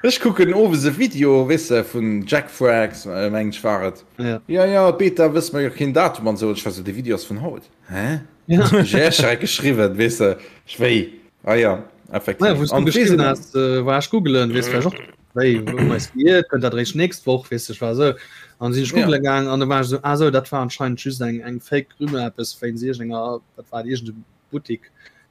ech kucken owes e Video, weess de, vun Jackfrags, mengen ech war et. Jo, jo, d'Beta wësse mer jo keen Datum an esou. An ech war esou, dee Video ass vun haut. Hä? Ja. Ech erschreckt geschriwwen, weess de, ech wéi, ah ja, effektiv. Naja, wou s du geschriwwen has, war ech googelen, weess vläicht och, wéi, wou mer eis geirrt, kënnt dat eréischt nächst Woch, weess de, ech war esou, an sinn ech googele gaang an da war ech esou, ah esou, dat war anscheinend just eng, eng fake Rumeur, eppes wéinst iergendenger, wat war et, iergende Buttik,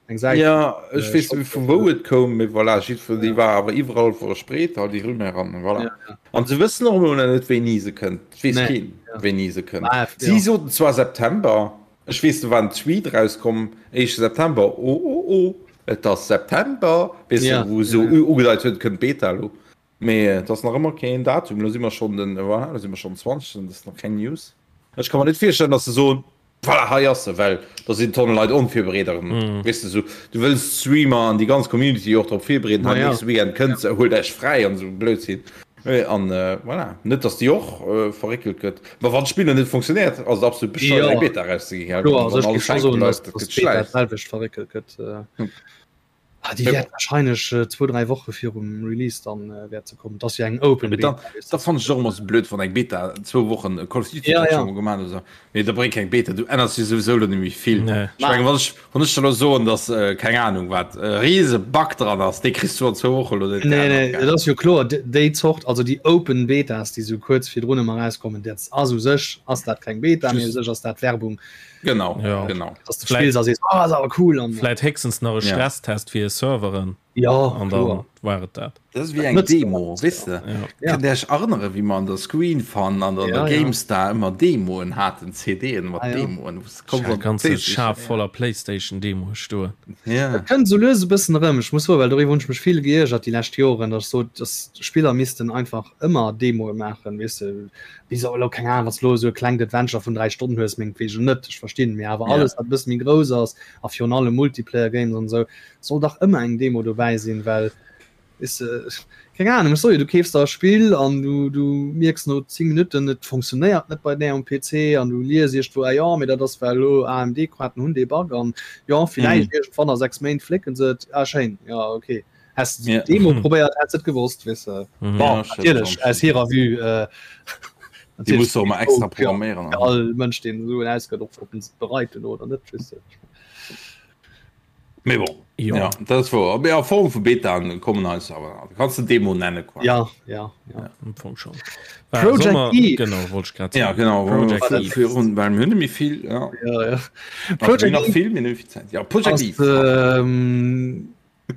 eng Säit. Ja, ech weess net vu wou et koum, mee voilà, jiddwer, déi war awer iwwerall verspreet, all déi Rumeur an voilà. An se wëssen och elo nach net, wéini se kënnt, et weess keen, wéini se kënnt. Si soten zwar September. Ech weess, do war en Tweet erauskomm, éischte September, oh oh oh, et ass September, weess de, wou esou ugedeit huet, et kënnt d'Beta elo. Mee et ass nach ëmmer keen Datum. Elo si mer schonn den, voilà, elo si mer schonn den 20. Et ass nach keng News. Ech ka mer net virstellen, datt se soen, voilà, hei ass se, well da sinn Tonne Leit onvirbereet erëm, weess de, esou, du wëlls d'Streamer an déi ganz Community jo och drop virbereeden, hei nächste Weekend kënnt se, huelt Iech fräi an esou Blödsinn. An voilà, net dass déi och verréckelt gëtt. Ma wann d'Spill net funktionéiert, ass et absolut bescheuert eng Beta erauszeginn, gell? Kloer, also ech géif scho soen, dass d'Beta d'selwecht verréckelt gëtt. Déi wäert wahrscheinlech zwou, dräi Woche virum Release dann wäert se kommen. Et ass jo eng Open Beta. Dat fannen ech och ëmmer sou blöd, wann eng Beta zwou Wochen Call of Duty huet scho mol gemaach oder sou. Mee da bréngt keng Beta, du änners jo souwisou elo net méi vill. Ech mengen, wann ech, wann ech der elo soen, dass, keng Ahnung wat, e riese Bug dran ass, dee kriss du an zwou Woche elo net Nee, nee, geännert, et ass jo kloer, déi Zort, also déi Open Betas, déi sou kuerz virdrun ëmmer erauskommen, dat ass u sech ass dat keng Beta, mee u sech ass dat Werbung. Genau, genau. Dass de spills a sees, oh, ass awer cool an. Vläit héchstens nach e Stresstest fir hir Serveren. Jo, an dann war et dat. Dat ass wéi eng Demo, weess de? Kënnt Dir Iech erënneren, wéi mer an der Screen Fun an der GameStar ëmmer Demoen haten, CDen mat Demoen, wou s de komm an ganze Schaf voller Playstation-Demoe stoen. Et kënnt esou lues e bëssen erëm. Ech muss soen, well doriwwer hunn ech mech vill geiergert déi lescht Joren, datt ech sot, datt Spiller missten einfach ëmmer Demoe maachen, weess de, wéi se elo, keng Ahnung, wann s de elo esou e klengt Adventure vun 3 Stonnen hues, mengtwegen net, ech verstinn, mee awer alles, wat e bësse méi grouss ass a virun allem Multiplayer-Games an esou, Soll dach ëmmer eng Demo dobäi sinn, well weess de, keng Ahnung, ech soe jo, du keefs der e Spill an du du mierks no 10 Minutten, et funktionéiert net bei där um PC an du lies iergendwou, ah jo, mee dat ass well elo AMD-Koarten hunn dee Bug an jo, villäicht iergendwann a 6 Méint flécken se et, ah schéin, jo ok, häss de d'Demo probéiert, häss de et gewosst, weess de. Bon, natierlech aus hirer Vue, Déi muss de och emmer extra programméieren. All Mënsch deen esou en ausgëtt, och ob en se bereit huet oder net, weess de. Mee bon, jo. Ja, dat ass wouer. Mee a Form vu Betaen kommen eis awer. Du kanns se Demo nenne quasi. Ja, ja, ja. Ja, am Fong schon. Project Sommer, Eve. Genau, wollt ich grad Ja, sagen. genau. Project Eve. Virun, well mir hunn net méi vill. Ja. Ja, ja. Also, Project nach Eve vill, mir hunn net méi vill Zäit. Ja, Project ass Eve. ähm,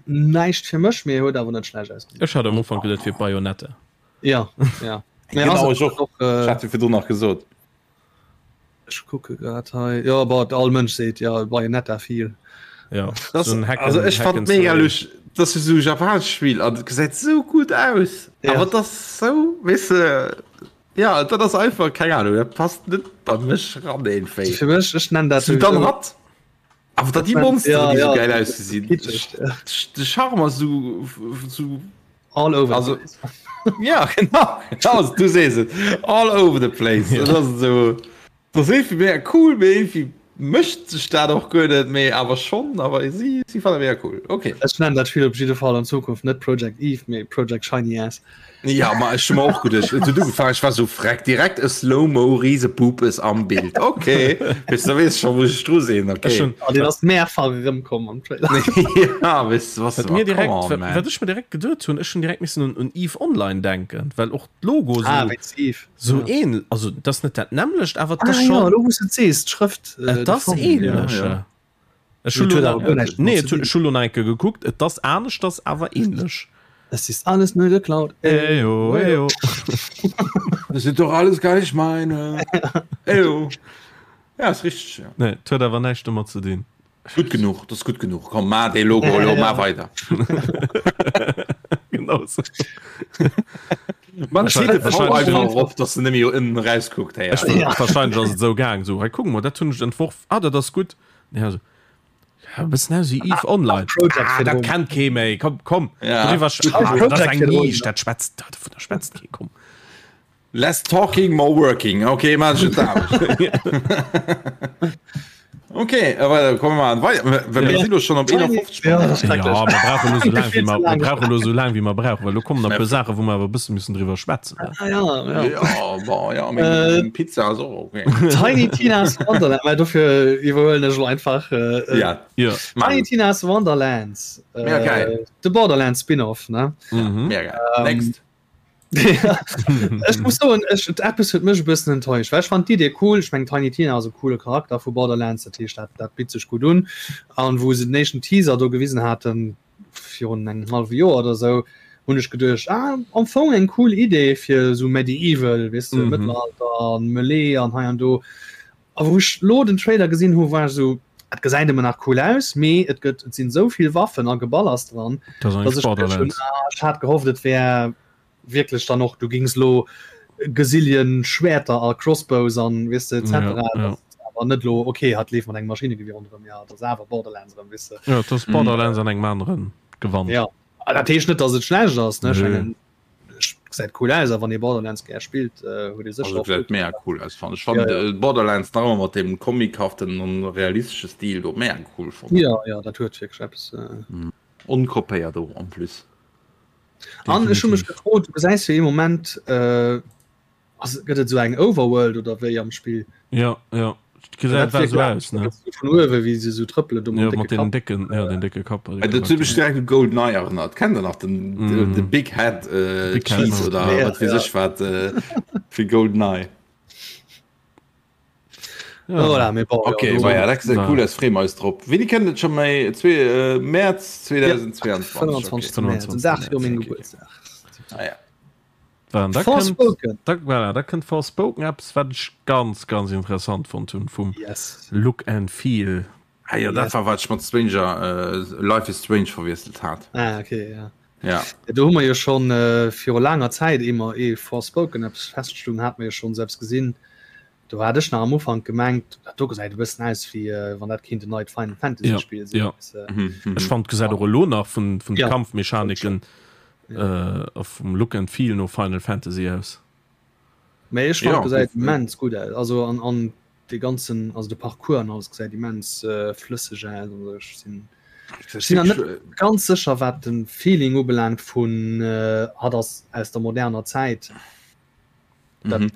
näischt fir mech, mee huet awer net schlecht ausgesinn. Ech hat am Ufank geduet fir Bayonetta. Ja, ja. Mee Genau, ass ech och. och, äh, Ech hat jo virdrun nach gesot. Ech kucke grad hei. Jo, bon, all Mënsch seet jo Bayonetta feel. Ja, Das, so ein Hack also ech Hack fand and mega Slay. lusch, das ist so japanesch Spiel an gesäit so gut aus. Ja. Aber das so weißt du, ja dat ass einfach keng Ahnung, dat passt net bei mech ran irgendwie. Fir mech, ech nennen dat So, dann hat awer dat die Monster Ja, die so ja, geil das ist ausgesinn. kitschig, ja. De Charme ass so, so All over Also- the place. Ja, genau. genau du sees et. All over the place. Ja. Das ass so, das ass irgendwie mega cool, mee irgendwie. Mécht sech dat och guer net, mee awer schonn, awer si si fannen mega cool. Okay. Ech nennen dat Spill op jidde Fall an Zukunft net Project Eve, mee Project Shiny Ass. Ja, ma ech hu mer och geduecht, et huet ugefaangen, ech war sou freck, direkt e Slow-Mo Riesepupes am Bild. Okay, weess da weess ech scho wou ech dru sinn, okay. Ech hunn. An deen ass mehrfach erëmkomm am Trailer. Ja, weess de, was, Wat mir come direkt, on, wat, man. wat ech mir direkt geduet hunn, ech hunn direkt missen un, un Eve Online denken, well och d'Logo Ah, sou, wéinst Eve. sou Ja. ähnl, also et ass net dat nämmlecht, awer et ass Ah, ja, schonn, elo wou s de et sees, d'Schrëft, et de ass Fong, ja. ähnlech. Ja, ja. Ech hu Mee et lo huet awer guer näischt nee, domat et ze hu, dinn. ech hu lo nach eng Kéier gekuckt, et ass aneschters, awer ähnlech. Es ist alles nur geklaut. Ejo, ejo. Das sind doch alles gar nicht meine. Ejo. Ja, ist richtig, ja. Nee, et huet awer näischt domat ze dinn. Gutt genuch, das ist gutt genuch. Komm, ma dee Logo elo, ma weider. Genau sou. Man Wahrscheinlich- steet de wahrscheinlich- einfach op, dass du nemmi ënnen rauskuckt. Hey, Ech, Ja. Wahrscheinlich ass et sou gaang, sou, hei kuck mol, dat hunn ech entworf, ah, dat ass gutt. Ja, sou, ja, e bëssen aus wéi Eve Online. Project Ah, dat virdrun. kennt kee méi, komm, komm. Ja. Doriwwer sch- Schreif ah, dat ass Project eng virdrun. Nisch, dat schwätzt, dovunner schwätzt kee, komm. Less talking, more working. Okay, man schon Okay, aber kommen wir mal weiter. Wir ja. sind schon op 51 Ja, das ist Ja, schrecklech. mir brauchen nur so lang wie Viel zu wir, mir lang. brauchen nur so lang wie wir brauchen, weil lo kommen nach e puer Saachen, wou mer awer e bësse müssen driwwer schwätzen. Ah, ja, ja. Ja, bon, ja, mit Äh, Pizza so okay. Tiny Tina's Wonderland, well dofir iwwerhuelen ech lo einfach. Äh, Ja, Ja. Tiny Tina's Wonderlands. Äh, Mega geil. De Borderlands Spin-off, ne? Mhm. mega geil. Next. Ech muss soen, ech, eppes huet mech e bëssen enttäuscht, well ech fand d'Idee cool. Ech meng Tiny Tina ass e coole Charakter vu Borderlands, dat heescht dat, dat bitt sech gutt un. An wou se den éischten Teaser do gewisen haten, virun engem hallwe Joer oder sou, hunn ech geduecht, ah, am Fong eng cool Idee fir sou Medieval, weess de, Mhm. Mëttelalter an Melee an hei an do. A wou ech lo den Trailer gesinn hu, war ech sou, et gesäit ëmmer nach cool aus, mee et gëtt, et sinn esou vill Waffen a Geballers dran, Dat ass dass eigentlich ech geduecht hunn, Borderlands. ah, ech hat gehofft, et wär wierklech dann och, du gings lo Gesilien Schwerter a Crossbows an weess de etc. Ja, ja. Dat awer net lo, okay, hatt leeft mat engem Maschinengewier ronderëm, ja, dat ass awer Borderlands erëm, weess de. Ja, dat ass Borderlands an engem aneren Gewand. Ja, a dat heescht net, dass et schlecht ass, ne, ech Nö. mengen, gesäit cool aus, a wann ee Borderlands gär spillt, huet ee sécher Also och gesäit mega cool aus fannen ech. Fannen Ja, ja. Borderlands nach ëmmer mat deem comichaften an realistesche Stil do mega cool fonnt. Ja, ja, dat huet wierklech eppes. Onkopéiert och en plus. An ech hu mech Definitiv. gefrot, du gesäis jo ee Moment, ass, gëtt et esou eng Overworld oder wéi am Spill? Ja, ja. Gesäit Dat war wierkt sou aus, ne? vun uewe wéi se sou trëppelen do Ja, mat mat décke den Kapp. décken, ja, den décke Kapp. Äh, Dat huet mech direkt u GoldenEye erënnert. Kennt der nach den, mm. de Big Head äh, Big Head, Cheese ja. oder Ja, wat weess ja. ech wat äh, fir GoldenEye. Ja. Voilà, mee bon, Okay, ja, do, ma ja, dat gesäit War- cool aus, freeë mer eis drop. Wéini kënnt et scho méi? Zwee, äh, Mäerz 2022. 25. Okay. Mäerz, den Dag viru mengem Okay. Gebuertsdag. Ah, ja. Dann, da kënnt, Forspoken. da, voilà, da kënnt Forspoken, eppes wat ech ganz, ganz interessant fonnt hunn vum Yes. Look and Feel. Ah, ja, dat Yes. war wat ech mat Stranger, äh, Life is Strange verwiesselt hat. Ah, okay, ja. Ja. Ja, do hu mer jo schon äh, viru laanger Zäit eemol ee Forspoken eppes feststoung, hat mer jo schon selbst gesinn. Do hat ech nach am Ufank gemengt, dat do gesäit e bëssen aus wéi äh, wann dat kéint en neit Final Fantasy Ja, Spiel sinn. ja. Weißt du? Mhm, mhm. Ech fand gesäit och elo nach vun, vun de Ja. Kampfmechaniken äh, a vum Look and Feel no Final Fantasy aus. Mee ech fand Ja, gesäit definitiv. immens gutt aus. Also an, an de ganzen, also de Parcours an alles gesäit immens äh, flësseg aus. Also ech sinn Das sinn ist net ganz sécher wat den Feeling ubelaangt vun äh, hat ass aus der moderner Zäit. Dat, Mhm.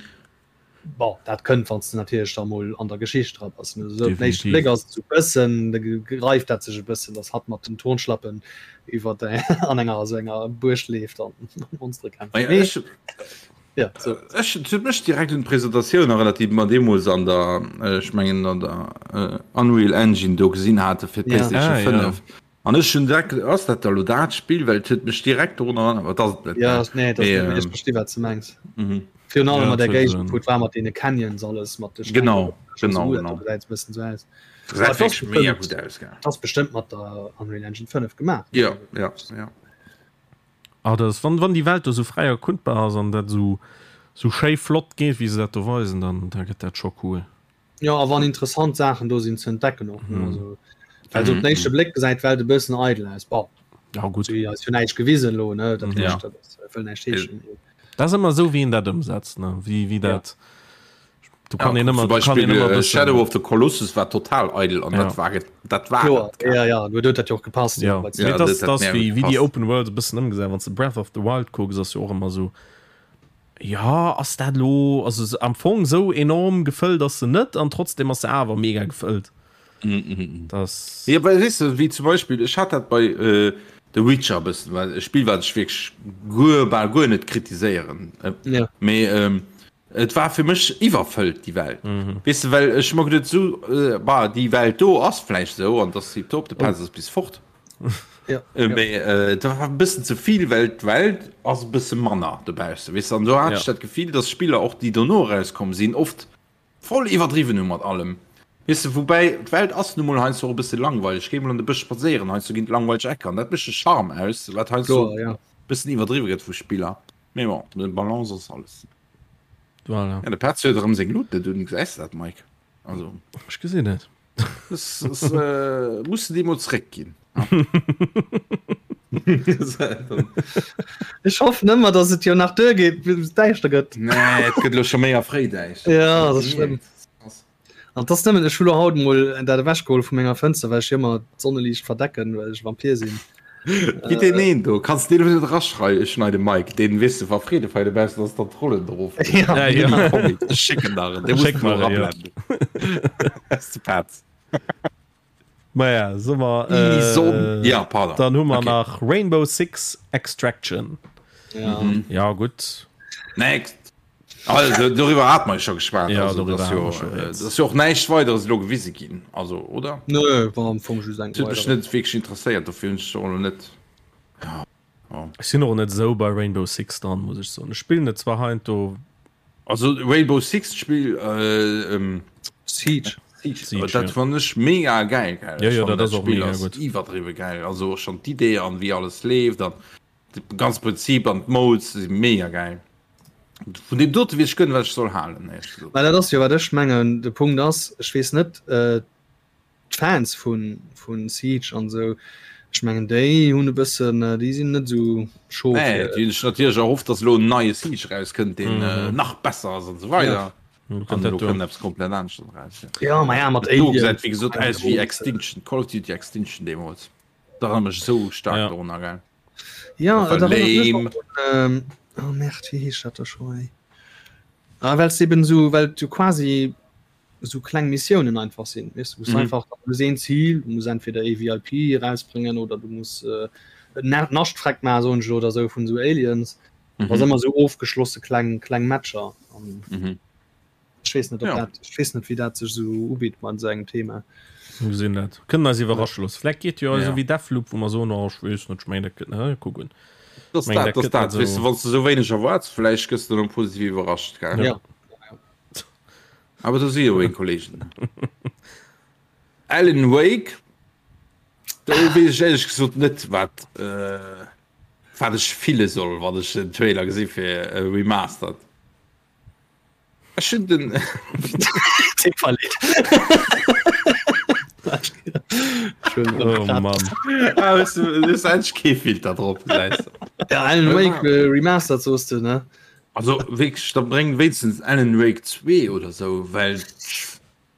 bon, dat kënnt wann du natierlech da mol an der Geschicht dra bass. Ne? So, op den éischten Definitiv. Bléck ass et sou bëssen, da greift dat sech e bëssen, dass hatt mat den Turnschlappen iwwer an enger sou enger Buerg leeft an Monstere kämpft. Ah ja, Mee ech, ja, so. ech, et huet mech direkt un d'Presentatioun erënnert, déi mer deemools an der, ech mengen an der äh, Unreal Engine do gesinn hate fir Ja. d'PlayStation Ah, ja. 5. An ech hunn direkt, ass dat da lo dat Spill? Well et huet mech direkt dorun erënnert, awer et ass et net, Ja, ne? nee, dat Mee, net, mee ech ähm, versti wat du mengs. mhm. Virun allem Ja, mat der et huet Géigend, en- wou et war mat deene Canyons alles, mat de Steng, Genau, schon genau, so, genau. dat gesäit e bëssen sou aus. Gesäit Aber et ass wierklech mega bestimmt- gutt aus, gell? Dat ass bestëmmt mat der Unreal Engine 5 gemaach. Ja, ja, ja. Ah, dat ass, wann, wann déi Welt do sou fräi erkundbar ass an dat sou, sou schéi flott geet, wéi se dat do weisen, dann, da gëtt dat scho cool. Ja, a wann interessant Saachen do sinn ze entdecken och. Ne? Mhm. Also, well so op den éischte Bléck gesäit d'Welt e bëssen eidel aus. Bon, Ja, gutt. si eis jo näischt gewisen elo, ne? Dat Mhm. heescht, Ja. dat ass, wëll näischt heeschen. Dat ass ëmmer esou, wéi een dat ëmsetzt, ne? Wéi, wéi Ja. dat. Du kann ja, ëmmer Beispiel, äh, Shadow of the Colossus war total eidel an ja. dat war dat war Klar, ja, ja, du huet dat jo och gepasst. Ja. Ja, ja, das, das, das wie, wie die Open World e bëssen ëmgesat wann du Breath of the Wild kucks ass jo och ëmmer so ja ass dat lo also am Fong sou enorm gefëllt ass se net an trotzdem ass se awer mega gefëllt. Mm, mm, mm. Das ja, weil, weißt du, wie zum Beispiel ich hat dat bei äh, The Witcher bëssen well e Spiel wat ech wierklech guer bal guer net kritiséieren äh, ja. mee ähm, Et war fir mech iwwerfëllt déi Welt. Mhm. Weess de, well ech hu mer geduet, sou, äh, bah, déi Welt do ass vläicht sou an dass déi top, de Pelz ass bis fort. Ja. Äh, mee äh, dat war e bëssen ze vill, well d'Welt ass e bësse manner dobausse, weess de. An do hat Ja. ech dat Gefill, dass Spiller och, déi dono erauskomm sinn, oft voll iwwerdriwwen hu mat allem. Weess de, woubäi d'Welt ass nu mol heiansdo och e bësse langweileg. Géi mol an de Bësch spadséieren, heiansdo ginn et langweileg Ecker an dat mécht de Charme aus, wat heiansdo Kloer, ja. e bëssen iwwerdriwwe gëtt vu Spiller. Mee bon, de Balance ass alles. Voilà. Ja, de Petz huet erëm seng Lut net un, gesäis de dat, Mike? Also. Ech gesinn et. Das, das, äh, muss du dir mol zréckginn. Ech hoffen ëmmer, dass et jo nach duer geet, bis et däischter gëtt. Nee, et gëtt elo scho méi a fréi däischter. Ja, dat ass schlëmm. An dass nëmmen ech hu lo haut mol dat ewechgeholl vu menger Fënster, well ech jo ëmmer d'Sonneliicht verdecken, well ech Vampir sinn. Wéi deen een do, kanns de deen net eraschrei schneiden, Mike, deen weess de wa Freede feiert dobaussen ass, dann d'Rollen erof. Ja, ja. Ech schécken der en, dee muss Schéck de mer elo en, ja. erablenden. Ass de Petz. Maja, soe mer, Déi Sonn, ja, pardon. Dann hu mer Okay. nach Rainbow Six Extraction. Ja. Ja, gutt. Next. Also, doriwwer hat mer scho geschwat. Ja, also, doriwwer das hat jo, mer scho äh, rieds. das jo och näischt weideres elo gewise ginn. Also, oder? Nö, war am Fong just eng Dat huet mech weider. net wierklech interesséiert, dofir hunn ech och elo net. Ja, ja. Ech sinn och net esou bei Rainbow Six dran, muss ech soen. Ech spillen et zwar heiansdo. Also Rainbow Six d'Spill, äh, ähm, Siege. Siege, Siege, dat ja. fann ech mega geil, gell. Ja, Ech ja, fannen dat ass dat och Spill mega ass gutt. iwwerdriwwe geil. Also och schonn d'Idee an wéi alles leeft an de ganz Prinzip an d'Modes si mega geil. Vun deem dote weess ech guer net wat ech soll halen éierlech gesot. Mä dat ass jo wat ech mengen, de Punkt ass, ech weess net, d'Fans vu vu Siege an esou, ech mengen déi hunn e bëssen, déi sinn net esou chaud Nee, fir. déi hunn sech natierlech erhofft, datt elo en neie Siege erauskënnt, deen nach besser ass an esou weider. An elo kënnt eppes komplett aneschters eraus. Jo, ma ja, mat Dat do Alien. gesäit wéi gesot aus wéi Extinction, Call of Duty Extinction deemools. Dat erënnert mech esou staark dorunner, gell. Ja, Dat war dat erinnert mech lame. och un, ähm, oh merde, wéi heescht dat da scho ey? Ah, well s eben esou, well du quasi esou kleng Missiounen einfach sinn, weess du, wou s du Mhm. einfach, du hues een Zil, du muss entweder ee VIP erausbréngen oder du muss äh, en Na- Nascht freck maachen, soen ech elo, oder esou vun esou Aliens. Mhm. Dat ass ëmmer esou ofgeschlosse kleng, kleng Matcher. An Mhm. Ech weess net, ob Ja. dat, ech weess net, wéi dat sech esou ubitt mat esou engem Thema. Mir gesinn dat. Kënnen eis iwwerrasche loossen. Vläicht geet jo Ja. esou wéi Deathloop, wou mer soen, oh, ech weess net, ech mengen, dat gëtt, ne, kucken. Das Meng, dat, dat das gëtt dat. net Weess du, esou. wann s du esou wéineg erwaards, vläicht gëss du dann positiv iwwerrascht, gell? Ja. Awer do si jo meng Kollegen. Alan Wake, do weess ech éierlech gesot net, wat, äh, wat ech fille soll, wann ech den Trailer gesi fir Remastered. Ech hunn den Oh Mann. Ah, weißt du, du hast endlich kee Filter drop, gesäis du. Ja, Alan Wake äh, Remastered soos du, ne? Also wierklech, da bréng wéinstens Alan Wake 2 oder sou, well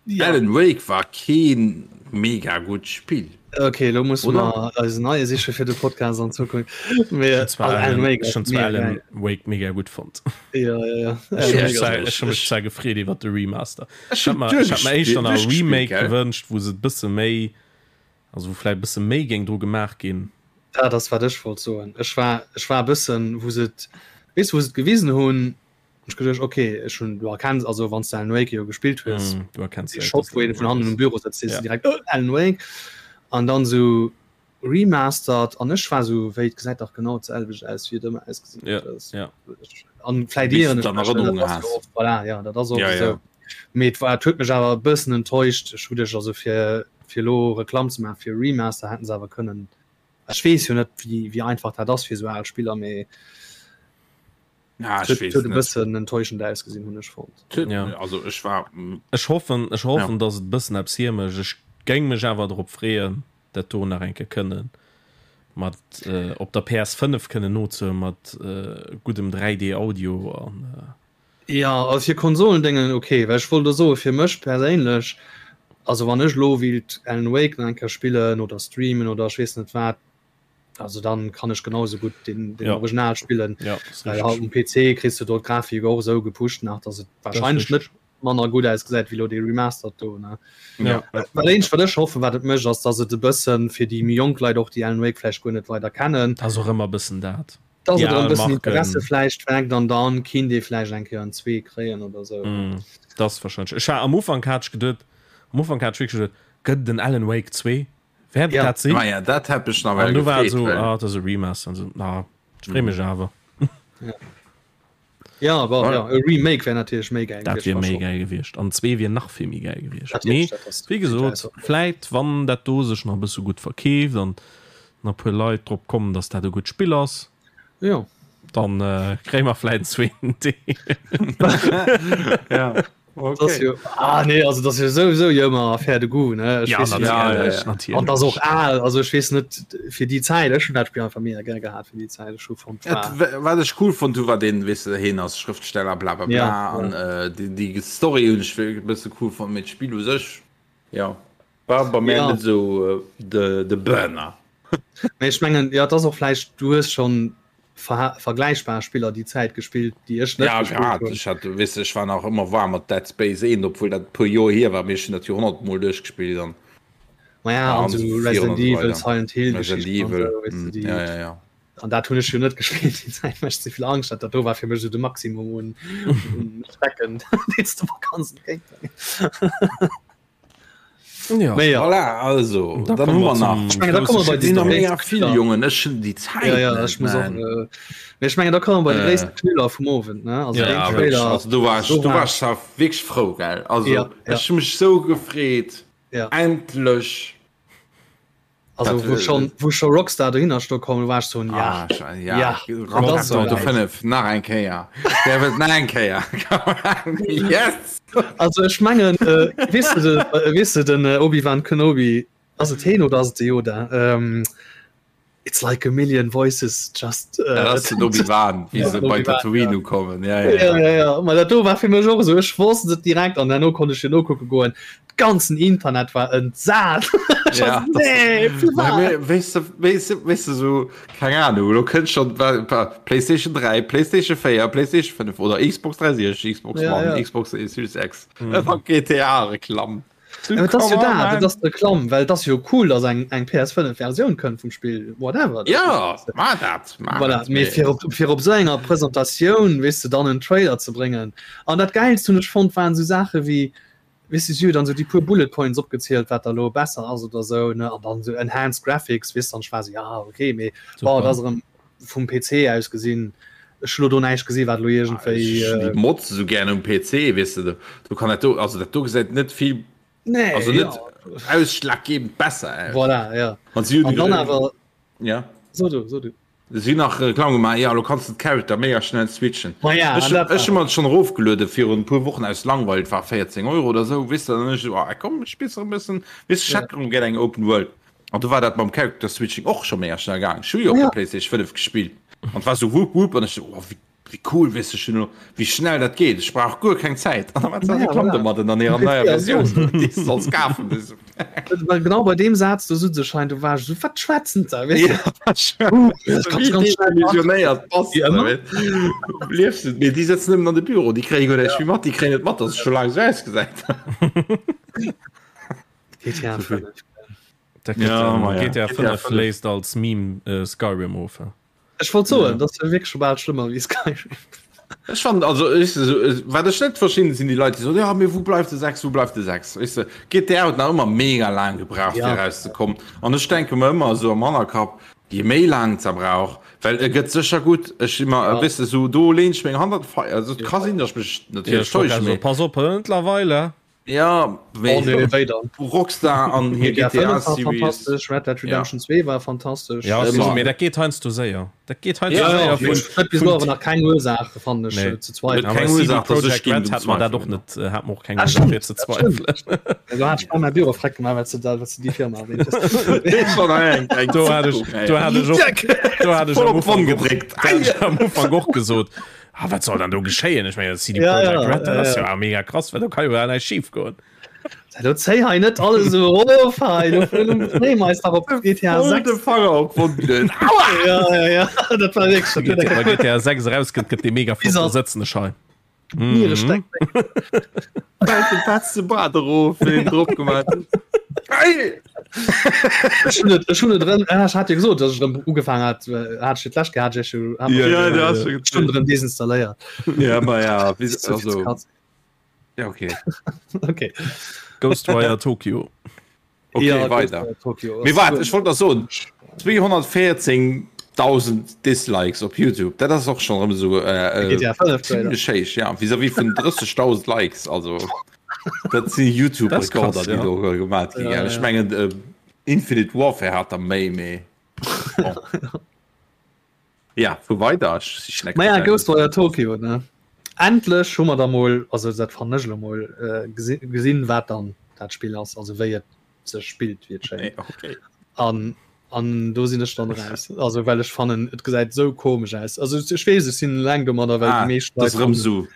Ja. Alan Wake war keen mega gutt Spill. Okay, lo muss Oder? mer eisen neie siche fir de Podcast an Zukunft. Mee, Zwar also Alan Wake Ech ass hunn zwar mega Alan geil. Wake mega gutt fonnt. Ja, ja, ja. Ech Alan hu Wake mech ass zwar- ech hu mech zwar gefreet iwwer de Remaster. Ech Ech hat hunn mer ech hat mer éischter nach e duerchgespillt, Remake gell? gewënscht, wou se et bësse méi, also wou vläicht e bësse méi géing dru gemaach ginn. Dat ass wat ech wollt soen. Ech war, ech war e bëssen, wou se et, weess du, wou se et gewisen hunn, Ech geduecht okay ech hun du erkenns also wann du Alan Wake jo gespillt hues mm, du erkenns de Shot wou een vun hannen um Büro sëtzt ja. direkt oh, Alan Wake an dann so remastered an ech war so wéi et gesäit dach genau d'selwecht aus wéi et ëmmer ausgesinn ja. huet ja. an vläit Bis ieren du ech dann mech, dat Erënnerungen ass has. jo oft voilà ja dat ass oft Ja, esou ja. mee et war et huet mech awer e bëssen enttäuscht ech hu dech also fir fir elo Reklamm ze maachen fir Remaster hätten se awer kënnen ech weess jo net wéi wéi einfach dat ass fir esou al Spiller mee Ja, Et huet e bëssen enttäuschend ausgesinn, hunn ech fonnt. Ja. Also ech war. Ech hoffen, ech hoffen, ja. dass et bëssen eppes hiermécht. Ech géing mech awer drop freeën, dat do nach eng Kéier kënnen mat äh, op der PS5 kënnen nozehuelen mat äh, guddem 3D Audio an äh. Ja, also fir Konsolendéngen ok, well ech wollt elo soe fir mech perséinlech, also wann ech elo wéilt Alan Wake nach eng Kéier spillen oder streamen oder ech weess net wat, also dann kann ech genau esou gutt den, den ja. Original spillen. Ja, well halt um PC kriss du dort Grafik och esou gepusht nach, dass et wahrscheinlech net manner gutt ausgesäit wéi lo dee Remastered do ne. Ja. Wat eenzegt wat ech hoffen, wat et mécht, ass dass et e bëssen fir déi méi jonk Leit och, déi Alan Wake vläicht guer net weider kennen, Ass och ëmmer bëssen dat. Dass et erëm bëssen Interesse vläicht weckt an dann kinnt ee vläicht eng Kéier en zwee kréien oder sou. Mm, das wahrscheinlech. Ech war am Ufank hat ech geduet, am Ufank hat ech wierklech geduet, gëtt et en Alan Wake 2? Wäert et Ja. dat sinn? Ma ja, dat hätt mech nawell An du war et gefreet, esou, well. ah, dat ass e Remaster an sou, na, ech free mech awer. Ja, bon, ja, e Remake wär natierlech méi gäil Dat gewiescht, wier war méi schon. gäil gewiescht an zwee wier nach vill méi gäil gewiescht. Natierlech, Mee dat ass wéi gesot, vläit wann dat do sech nach e bësse gutt verkeeft an nach e puer Leit drop kommen, datt dat e gutt Spill ass, Jo. dann kréie mer vläit en zweeten Deel. Ja, Das okay. jo, ah, nee, also das jo souwisou jo ëmmer Affaire de goût, ne? Ech Ja, weess net, Ja, ja, natierlech, ja. an das natierlech. och al, also ech weess net fir déi Zäit, ech hunn dat Spill einfach mega gär gehat fir déi Zäit, ech hu fonnt Et, war wa- wat ech cool fonnt hu war den, weess de, hien ass Schrëftsteller bla bla bla ja, an ja. äh, déi, déi Story hunn ech e bësse cool fonnt, mee d'Spill u sech, ja, war bei mär Ja. net esou äh, de, de Burner. Mee ech mengen, ja, et ass och vläicht, du hues schonn ver vergläichbar Spiller déi Zäit gespillt, déi ech net Ja, gespillt grad. hunn. Ech hat, weess de, ech war nach ëmmer waarm mat Dead Space 1, obwuel dat e puer Joer hier war, mee ech hunn dat jo 100 Mol duerchgespillt an Ma ja, ja, an an sou esou virun Resident an esou Evil, weider. Silent Hill Resident Geschichten an Evil, sou, weess de, mm, déi ja, ja, ja. an dat hunn ech jo net gespillt déi Zäit, well ech ze vill Angscht hat. Dat do war fir mech sou de Maximum un un Schrecken, deen s de mer kanns entgéintbréngen. Ja. Mee ja. Voilà, also, Da dann komme hu mer mer nach. zum Ech mengen, da komme mer bei Et sinn nach déi mega gréisste vill, Knüller. Jongen, ech hunn déi Zäit Ja, ja, net, ech muss och, man. äh, mee ech mengen, da komme mer bei de Äh. gréisste Knüller vum Owend, ne? Also Ja, deen Ja, wierklech, Trailer, also do war ech, do do war war ech, ech awer wierklech frou, gell? Also, ja, ja, ech hu mech sou gefreet, ja. endlech. Also Dat, wou äh, schon, wou scho Rockstar dohinner sto komm, war ech so, ja, Ah, sche- ja, ja, Grand et ass Theft Auto souwäit. 5, nach eng Kéier. Der wëllt nach eng Kéier. Yes! Also ech mengen, äh, weess du de, äh, weess du den äh, Obi-Wan Kenobi, ass et heen oder ass et de Yoda? Ähm, It's like a million voices just. Äh, dat ass den Obi-Wan, wéi ja, se bei Tatooine ja. ukommen. Ja, ja, ja. ja, ja. Ma dat do war fir mech och esou. Ech wosst et direkt an herno konnt ech jo nokucke goen. Ganzen Internet war entsat. Ja, nee, weess du, weess du, weess du so, keng Ahnung, lo kënnt schon PlayStation 3, PlayStation 4, PlayStation 5 oder Xbox 360, Xbox ja, One, ja. Xbox Series X. Mhm. GTA Reklamm. Ja, dat ass jo dat, dat ass d'Reklamm, well et ass jo cool, datt eng eng PS5 Versioun kënnt vum Spill, whatever. Ja, ma dat, ma voilà. dat. Mee fir op, fir op esou enger Presentatioun, weess de, dann en Trailer ze bréngen. An dat Gäilst hunn ech fonnt, waren esou Saache wéi, weess de, si hu dann esou déi puer Bullet Points opgezielt, wat da lo besser ass oder esou, ne, an dann esou Enhanced Graphics, weess de, an ech war esou, ja, okay, mee bon, dat ass erëm vum PC aus gesinn, ech hu lo do näischt gesi wat lo iergendwéi. Ech hunn déi Mods esou gären um PC, weess de, do kann dat do, also dat do gesäit net vill, Nee, also net ja. ausschlaggebend besser aus. Voilà, ja. An si hunn An dann awer, ja. So du, so du. Si hunn nach Reklamm gemaach, ja, lo kanns de d'Character mega schnell switchen. Ma ja, Ech an dat ech hu war. mer et schonn erofgeluede virun e puer Wochen aus Langweil, et war 14 Euro oder esou, weess de, an dann hunn ech esou, ah komm, ech spills nach e bëssen, weess de, ech Ja. hätt erëm gär eng Open World. An do war dat mam Character Switching och scho mega schnell gaang. Ech hu jo op Ja. der PlayStation 5 gespillt an et war sou wupp wupp an ech sou, oh wéi wéi cool, weess de, ech hunn elo, wéi schnell dat geet, ech brauch guer keng Zäit. An da war Ja, Reklamm voilà. domadden an hirer Um PC neier ass Versioun, déi s de solls kafen. Du sou, Well genau bei deem Saz do sutz ech hei, do war ech sou, wat schwätzen se, weess de? Ja, wat schwätzen Das se, kannst wéi ganz schnell machen. desillusionéiert bass Wéi de, ëmmer. weess de. Liefs de, mee déi sëtzen nëmmen an de Büro, déi kréie guer näischt méi mat, déi kréien net mat, dass et scho laang sou ausgesäit. GTA 5. Ja, GTA 5 léist als Meme äh, Skyrim of. Ech wollt soen, dat ass jo wierklech scho bal schlëmmer wéi Skyrim. Ech fand also ech, so, wat ech net verstinn sinn déi Leit déi soen, ja mee wou bleift de 6, wou bleift de 6 weess de GTA huet nach ëmmer mega laang gebraucht Ja. fir rauszekommen an ech denke mer ëmmer esou am Hannerkapp je méi laang ze brauch well e gëtt sécher gutt ech si mer Ja. weess de sou do leen ech meng Hand an d'Feier also et ka sinn datt ech mech Ja, natierlech ech wollt täusche grad mee soen, pass op, mëttlerweile. Ja, oh, nee, wéi dann? Rockstar an hir GTA 5 GTA war Series. fantastesch, Red Dead Redemption 2 war fantastesch. Ja, Ëmmer. mee dat geet heiansdo séier. Dat geet heiansdo Ja, séier ja, vun Ech huet bis elo awer nach keng Ursaach fannen ech Nee. ze zweifeln. Keng Awer CD Ursaach, dass ech Projekt géing Red drun hat mer dat och zweifeln. net, äh, hat mer och keng Ah, Ursaach stimmt, fir ze dat stimmt. zweifeln. Do hat ech bei Büro freck gemaach, well s de da, well s de déi Firma erwähnt hues. Schon eng, eng Do hat ech, Zeitung, ey. do hat ech och, do hat ech Voll am op d'Wonn Ufank och, gedréckt. do hat ech am Ufank och gesot. Ah, wat soll dann do geschéien? Ech mengen, CD Projekt ja, ja, Red, dat ass ja, ja mega krass, well do kann jo gar näischt schief goen. Do zéi hei net alles esou erof hei, do freeë mer eis dach op GTA 6. De Fanger op Wunden. Aua! Ja, ja, ja, dat war wierklech. Dat huet Wa GTA 6 erauskënnt, gëtt dee mega flott, da sëtzen ech hei. Niere steck. Fält de fetze Bart erof, wéi en drop gemaach huet. Ei! Ech hunn et, ech hunn et erëm, ah, ech hat jo gesot, dass ech erëm ugefaangen hat, hat ech fir d'lescht gehat, ech hu- hat Ja, ja, du hast schon ech hunn erëm desinstalléiert. Ja, ma ja, wéi, Zu vill also, Katz. ja, okay. Okay. Ghostwire Tokyo. Okay, ja, weiter. Tokyo. Mee waart, ech wollt nach soen, 214.000 Dislikes op YouTube, dat ass och schonn erëm esou äh, GTA 5 zimmlech héich, ja, vis-à-vis vun 30.000 Likes, also dat si YouTube-Rekorder, ja. déi do gemaat ginn. Ja, Ech ja. mengen äh, Infinite Warfare hat der méi, mee bon. Ja, vu weider, ech sichen eng Maja, Kéier. Ghostwire Tokyo, ne? Endlech hu mer da mol, also dat fannen ech elo mol, äh, gesi gesinn, wat dann dat Spill ass, also wéi et sech spillt, wéi et schéngt. Nee, okay. An, an do sinn ech dann raus. Also well ech fannen, et gesäit esou komesch aus. Also ech weess, ech sinn eleng domadder, well Ah, déi meescht dat ass Leit erëm fannen, esou.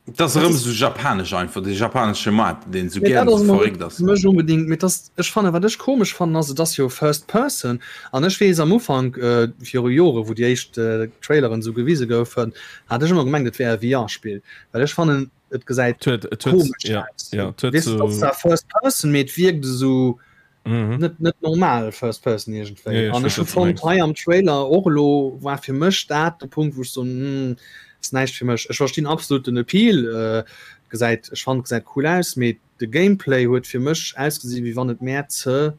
Dat ass erëm esou japanesch einfach, dee japanesche Maart, deen esou Mee gären dat ass esou emol verréckt net ass. fir mech onbedingt, mee dass, ech fannen, wat ech komesch fannen ass, et ass jo First Person an ech weess am Ufank, viru Jore wou déi éischt Traileren esou gewise goufen, hat ech ëmmer gemengt et wär e VR-Spill, well ech fannen et gesäit Et huet, et huet, komesch ja, aus. ja, et huet Weess de, et ass sou, zwar First Person, mee et wierkt esou mhm. net net normal First Person iergendwéi. Ja, ja, ech An weess, ech hu wat du fonnt mengs. hei am Trailer och elo war fir mech dat de Punkt, wou ech soen, hm, ass näischt fir mech. Ech verstinn absolut den Appeal, äh, gesäit ech fannen gesäit cool aus, mee de Gameplay huet fir mech ausgesi wéi wann et mär ze,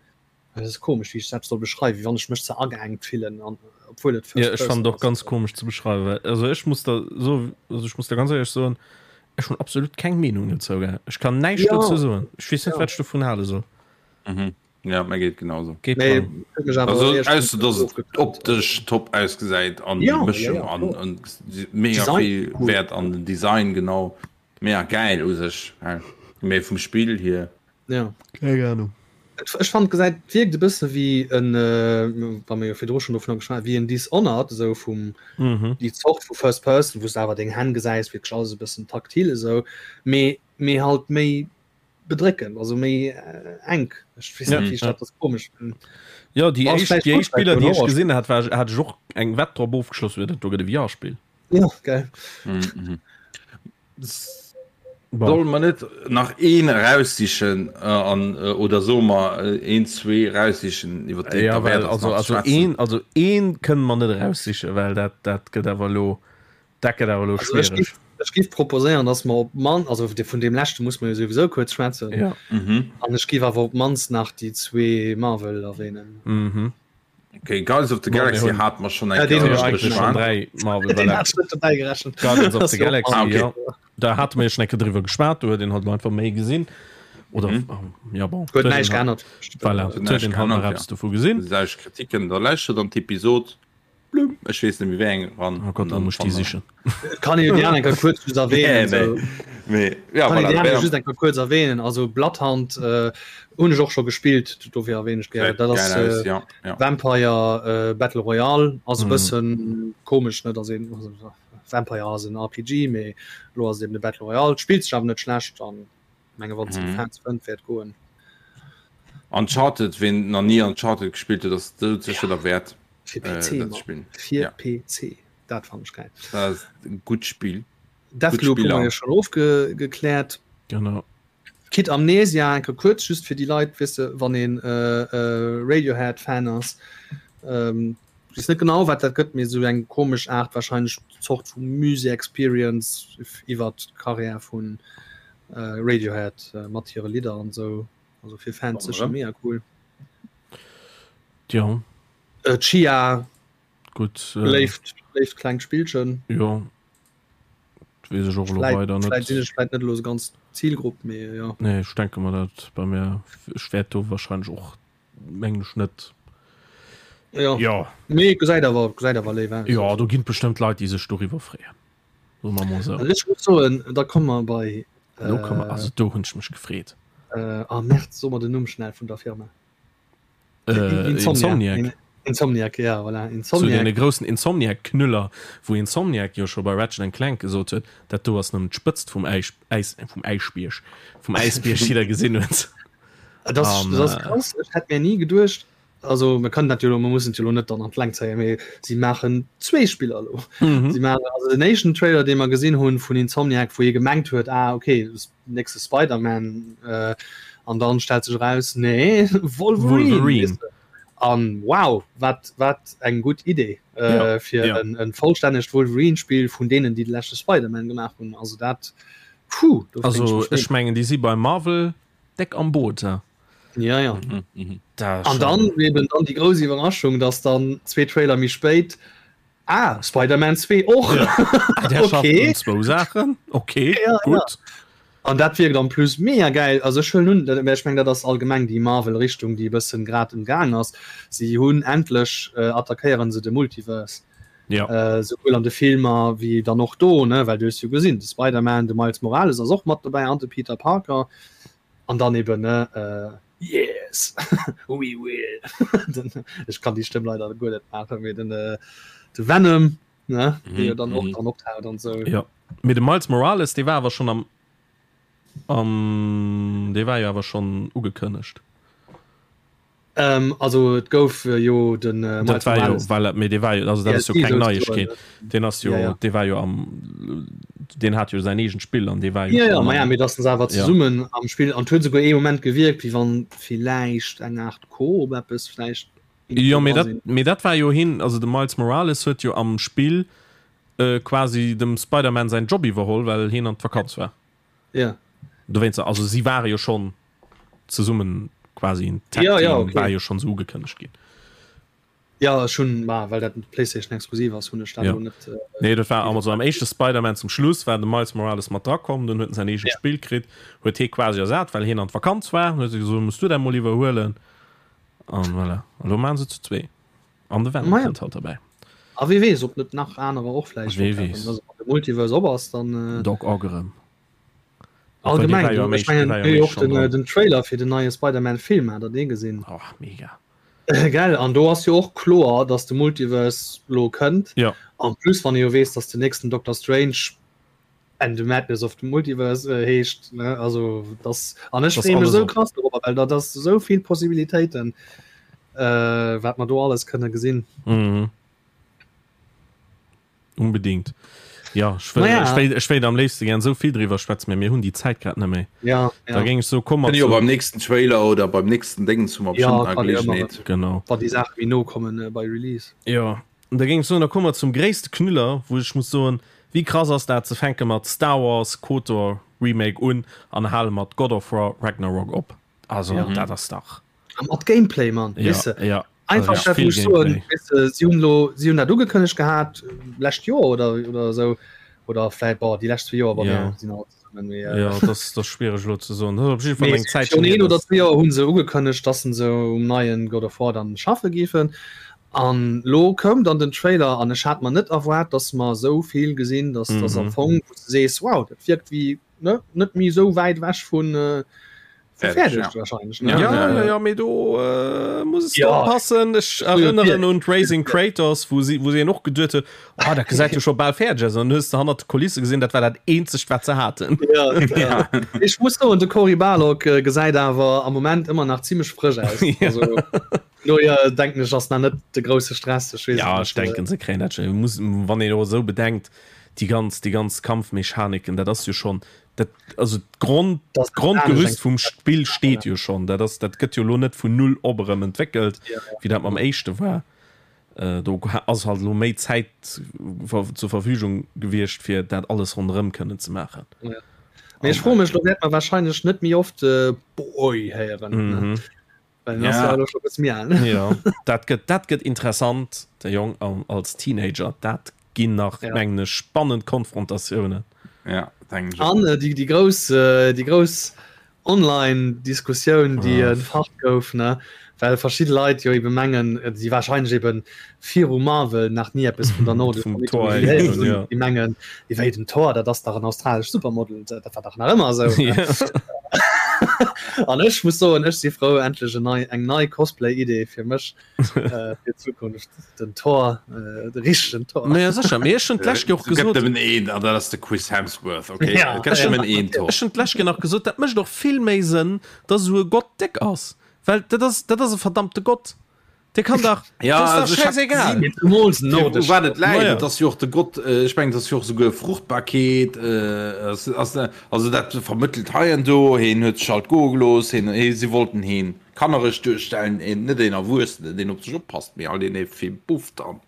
dat ass komesch wéi ech dat soll beschreiwen, wéi wann ech mech ze ageengt fillen an obwuel et Ja, First ech Person fannen et och ass. ganz komesch ze beschreiwen, well also ech muss der so, also ech muss der ganz éierlech soen, ech hunn absolut keng Meenung dozou, gell. Ech kann näischt Ja, dozou soen. Ech weess net, ja. wat ech dovun hale soll. Mhm. Ja, mir geet genauso. Geet Mee dran. huet mech awer Also eréischt ausser dass et ofgeturnt. optesch top ausgesäit an déi Ja, ja, Mëschung ja, an kloer. an mega Design vill cool. Wäert an den Design genau mega gäil u sech mee vum Spill hier. Ja. Keng Ahnung. Et, ech fand gesäit wierkt e bësse wéi en wa mir jo virdru schonn dovunner geschwat wéi en Dishonored esou vum Mhm. déi Zort vu First Person wou s de awer deng Hänn gesäis wierklech alles e bëssen taktil esou mee mee halt méi bedréckend also méi enk ech weess net wéi ech dat ass komesch Jo déi éischt déi éischt Biller déi ech gesinn hat war hat ech och eng Wett drop ofgeschloss huet dat do gëtt e VR-Spill. Ja geil. Solle mer net nach een eraussichen an oder soe mer een zwee eraussichen iwwer déi et Ja derwäert well ass also nach ze also schwätzen? een also een kënne mer net eraussichen well dat dat gëtt awer elo Dat gëtt awer elo Also ech schwiereg. giff, ech giff proposéieren, dass mer op man, also de, vun deem leschte muss mer jo souwisou kuerz schwätzen. Ja. Mhm. An ech giff awer op d'mannst nach déi zwee Marvel erwähnen. Mhm. Okay, Guardians of the Bon, mir Galaxy hunn- hat mer schon Ja, eng deen Kéier hunn ech Eigentlich schon beschwat. dräi Marvel. Den Voilà. hat ech net dobäi gerechent. Guardians of Das the ist jo Galaxy, Ah, okay. ja. Da hate mir jo schon eng Kéier driwwer geschwat, do huet een halt einfach méi gesinn. Oder, Mhm. ja bon. Huet Huet näischt een halt- geännert. Voilà, Huet huet näischt een halt nach geännert, ja. eppes dovu gesinn. Lausch Kritiken, da lauschtert an d'Episod. Blum, ech weess net méi wéi eng ran. Oh Gott, da muss ich déi sichen. Kann een déi aner enker kuerz just erwähnen. Nee, so. mee, ja, Kann een voilà, déi aner wär- just enker kuerz erwähnen. Also Bloodhound äh, hunn ech och scho gespillt, dofir erwähne ech gär. Dat ass geil aus, äh, ja, ja. Vampire äh, Battle Royale ass e Mhm. bëssen komesch net ass een also, Vampire ass en RPG, mee lo ass et eben de Battle Royale. Spillt sech awer net schlecht an menge wann Mhm. Fans fënnt wäert goen. Uncharted, ween nach nie Uncharted gespillt huet, ass doudsécher derwäert Fir äh, PC, dat ze Mann. spillen. Fir Ja. PC. Dat fand ech geil. Dat ass e gutt Spill. Deathloop hu Spiller. mer jo schon ofgekläert. Genau. Kid Amnesia enke kuerz just fir déi Leit wisse wann een äh, äh, Radiohead Fan ass. Ähm, ich weess net genau wat dat gëtt mir sou eng komesch Aart wahrscheinlech Zort vu Musée Experience iwwer d'Karriär vun äh, Radiohead äh, mat hire Lidder an sou. Also fir Fans sécher mega cool. Ja, Äh, Chia gutt. Äh, léift léift klengt Spillchen. ja. Weess ech och elo Vläit weider vläit sinn net. ech vläit net elo sou ganz Zielgrupp, mee jo. Nee, ech denke mer dat bei mir. Ech wäert do wahrscheinlech och mengen ech net. Ja. Ja. Nee, gesäit awer gesäit awer léif aus. Ja, do ginn bestëmmt Leit, déi sech doriwwer freeën. Soe mer mol sou. Also ech muss soen, da komme mer bei Do komme mer, also do hunn ech mech gefreet. Äh, ah Merd, so mer den Numm schnell vun der Firma. Äh, Insomniac. Insomniac. Insomniac, ja, voilà. Insomniac. Zu deene groussen Insomniac-Knüller, wou Insomniac jo scho bei Ratchet and Clank gesot huet, dat do ass nëmmen d'Spëtzt vum Äis, Äis, vum Äischbierg, vum Äisbierg, déi der gesinn huet. Dat ass, dat ass krass. Ech hätt mir ni geduecht, also mir kënnen dat jo elo, mir mussen et jo elo net dann an d'Längt zéien, mee si maachen zwee Spiller elo. Mhm. Si maachen also den éischten Trailer, dee mer gesinn hunn vun Insomniac, wou ee gemengt huet, ah okay, nächste Spider-Man, äh, an dann stellt sech eraus, nee, Wolverine. Wolverine. An wow, wat, wat eng gutt Idee äh, ja, fir ja. en, en vollstännegt Wolverine-Spiel vun deenen, déi de leschte Spider-Man gemaach hunn. Also dat, puh, also ech mengen, déi si bei Marvel déck am Boot. Ja. Ja, ja. Mhm, mhm. An dann eben dann die groß Überraschung, dass dann zwei Trailer méi spéit ah, Spider-Man 2 och. Ja. Ah, okay. Zwou Saachen. Okay, ja, gut. Ja. An dat wierkt en plus mega geil. Also ech huelen un, dat, ech meng dat ass allgemeng déi Marvel Richtung, déi e bëssen grad um Gaang ass. Si hunn endlech äh, attackéieren se de Multiverse. Ja. Äh, souwuel an de Filmer wéi dann och do, ne, well du hues jo gesinn, de Spider-Man, de Miles Morales ass och mat dobäi an de Peter Parker. An dann eben ne äh, Yes we will den, ech kann déi Stëmm leider guer net maachen, mee den äh, de Venom ne mm -hmm. dann och mhm. dann optaucht an sou. Ja. Mee de Miles Morales, dee war awer schon am am dee war jo awer schon ugekënnegt. Ähm, also et gouf äh, jo den äh, dat war jo, well, mee dee war jo, also dat ass jo keng Neiegkeet. Den ass jo, ja, ja. dee war jo am den hat jo säin eegent Spill an dee war jo ja, ja, ma ja, mee dass se awer zesummen ja. am Spill an huet souguer ee Moment gewierkt, wéi wann villäicht eng Art Koop eppes vläicht Jo, mee dat, mee dat war jo hin, also de Miles Morales huet jo am Spill äh, quasi dem Spider-Man säin Job iwwerholl, well hien an d'Vakanz war. Ja. Dowéinst, also si ware jo schonn zesummen quasi en Tag ja, ja, okay. war jo schonn sou ugekënnegt ginn. Ja ech hunn ma well dat PlayStation exklusiv ass hunn ech dat ja. net. Äh, nee dat war also am éischte Spider-Man zum Schluss war de Miles Morales mat drakomm, dunn huet en säin eegent ja. Spill kritt, huet hie quasi ersat, well hien an d'Vakanz war, huet se gesot muss du dat mol iwwerhuelen an voilà. An lo maachen se zu zwee. An de Venom ja. kënnt halt derbäi. A wie weess ob net nach anerer och vläicht Wie weess. Also, wann de Multiverse op ass, dann. Äh, Doc Ock erëm. Allgemeng, du, ech mengen, jo och den, äh, den Trailer fir den neie Spider-Man Film, hat der dee gesinn? Oh, mega. Gell, an do ass jo och kloer, dass de Multiverse lo kënnt. Ja. En plus, wann ee jo weess, dass den nächsten Doctor Strange And the Madness of the Multiverse äh, heescht, ne? Also das an ech freeë mech sou krass dorobber, well dat ass sou vill Possibilitéiten, äh, wat mer do alles kënne gesinn. Mhm. Unbedingt. Ja, ech wëll, Naja. ech wéilt, ech wéilt am léifste gern sou vill driwwer schwätzen, mä mir hunn déi Zäit grad net méi. Ja, Da ja. géing ech soen, komm mer Kënne jo zu. beim nächsten Trailer oder beim nächsten Déngens hu mer Ja, bestimmt nach kann jo ëmmer Gelegenheet. Genau. Wann déi Saache méi no kommen äh, bei Release. Jo, an da géing ech soen, da komme mer zum gréisste Knüller, wou ech muss soen, wéi krass ass dat, se fänke mat Star Wars KOTOR Remake un an hale mat God of War Ragnarok op. Also Ja. dat ass dach. A mat Gameplay, Mann, Ja, weess de. ja. Einfach Also, dat vill wou ech soen, Gameplay. weess de, si hunn elo, si hunn dat ugekënnegt gehat lescht Joer oder, oder esou, oder vläit, bon, déi lescht zwee Joer, bon, Ja. mir sinn alt zesummen, mee, Ja, dat ass, dat ass schwiereg elo ze soen. Dat ass op jidde Fall mee eng Zäitchen virun hier, een oder dass. zwee Joer hu se ugekënnegt, dass se um neien God of War dann schaffe géifen. An lo koum dann den Trailer an ech hat mer net erwaart, dass mer esou vill gesinn, dass dass am Mhm. Fong, wou s de sees, wow, dat wierkt wéi, ne, net méi esou wäit ewech vun, äh, Fäerdeg, ja. wahrscheinlich ne? Ja, ja, ja, mee do äh, muss es ja. oppassen. Ech erënneren un Raising Kratos, wou si, wou si och geduet huet, oh, dat gesäit jo scho bal fäerdeg aus. An hues de hannert de Kulisse gesinn, dat war dat eenzegt, wat se haten. Ja, ja. Ech muss soen, de Cory Barlog äh, gesäit awer am Moment ëmmer nach zimmlech frësch aus. Ja. Also, no ja, denken ech ass nach net de grousse Stress. Ech weess Ja, et ech net. denken, se kréien dat schon. Muss, wann een och esou bedenkt, déi ganz, déi ganz Kampfmechaniken, dat ass jo schon, dat also d'Grond Das d'Grondgerüst vum Spill steet jo schonn. Dat ass dat gëtt jo lo net vun null op erëm entwéckelt, Ja. wéi dat mam éischte war. Äh, do ass halt lo méi Zäit zur Verfügung gewiescht, fir dat alles ronderëm kënnen ze maachen. Ja. Mee ech froe mech, lo wäert mer wahrscheinlech net méi oft äh, Boy héieren. Ne? Mhm. Well den ass Ja. ja elo scho e bësse méi al. Ja, dat gëtt dat gëtt interessant, de Jong am, als Teenager, dat ginn nach Ja. mengen ech spannend Konfrontatiounen. Ja, denken ech och. An äh, déi, déi grouss, äh, déi grouss Online-Diskussioun, déi Ah. entfacht gouf, ne? Well verschidde Leit jo ebe mengen, äh, déi wahrscheinlech eben viru Marvel nach ni eppes vun der nordescher Vum Thor Mythologie héieren héieren hunn, hunn, ja. déi mengen, wéi den Thor, dat ass dach en australescht Supermodel, dat war dach nach ëmmer esou, ne? Ja. An ech muss soen, ech si frou, endlech en nei, eng nei Cosplay-Idee fir mech äh, fir d'Zukunft, den Thor, äh, de richtegen Thor. Naja, sécher, mee ech hunn d'lescht Joer och Et gëtt gesot, nëmmen een, an dat ass de Chris Hemsworth, okay? Ja. Et gëtt nëmmen een Thor. Ech hunn d'lescht Joer nach gesot, dat mécht och vill méi Sënn, dass esou e Gott déck ass, well dat ass, dat ass e verdammte Gott. Dee kann dach, Ja, dat ass dach also ich hab schäisegal. gesinn, Zemools u nordesch wat et Gott. läit. Naja. Et ass jo och de Gott, äh, ech mengen, et ass jo och souguer Fruchtbarkeet, äh, ass, ass, also dat vermëttelt hei an do, heen huet sech alt goe gelooss, heen, hee, si wollten heen kannereg duerstellen, een, net een Erwuessenen, deen op sech oppasst, mee alt een, dee vill bufft an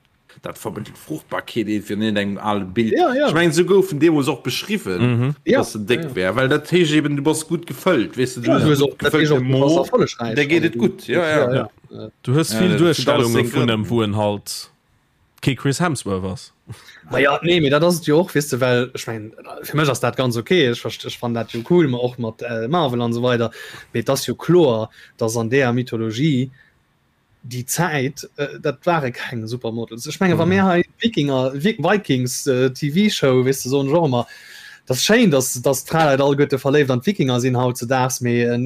dat vermëttelt Fruchtbarkeet iergendwéi an iergendengem ale Bild. Ja, ja. Ech mengen, esou gouf en deemools och beschriwwen, Mhm. Ja, dass en déck ja, ja. wär, well dat heescht eben, du bass gutt gefëllt, weess de, du Ja, hues du e hues gutt och, dat heescht gefëllte och, du bass Mo, erfollegräich. der geet Also et du, gutt, ja, ja, ja. ja. Äh, Du hues Ja, vill dat huet alles Duerstellunge seng vun Grënn. em, wou en halt kee Chris Hemsworth ass. Ma ja, nee, mee dat ass et jo och, weess de, well ech mengen, fir mech ass dat ganz okay, ech verst, ech fannen dat jo cool, ma och mat äh, Marvel an esou weider, mee et ass jo kloer, dass an deeër Mythologie déi Zäit, äh, dat ware keng Supermodels. Ech menge wa mir hei Wikinger, Vikings äh, TV-Show, weess de, soen ech och ëmmer, dat ass schéin, dass, dass d'Fraleit alleguerte verléift an d'Wikinger sinn hautzedaags, mee äh,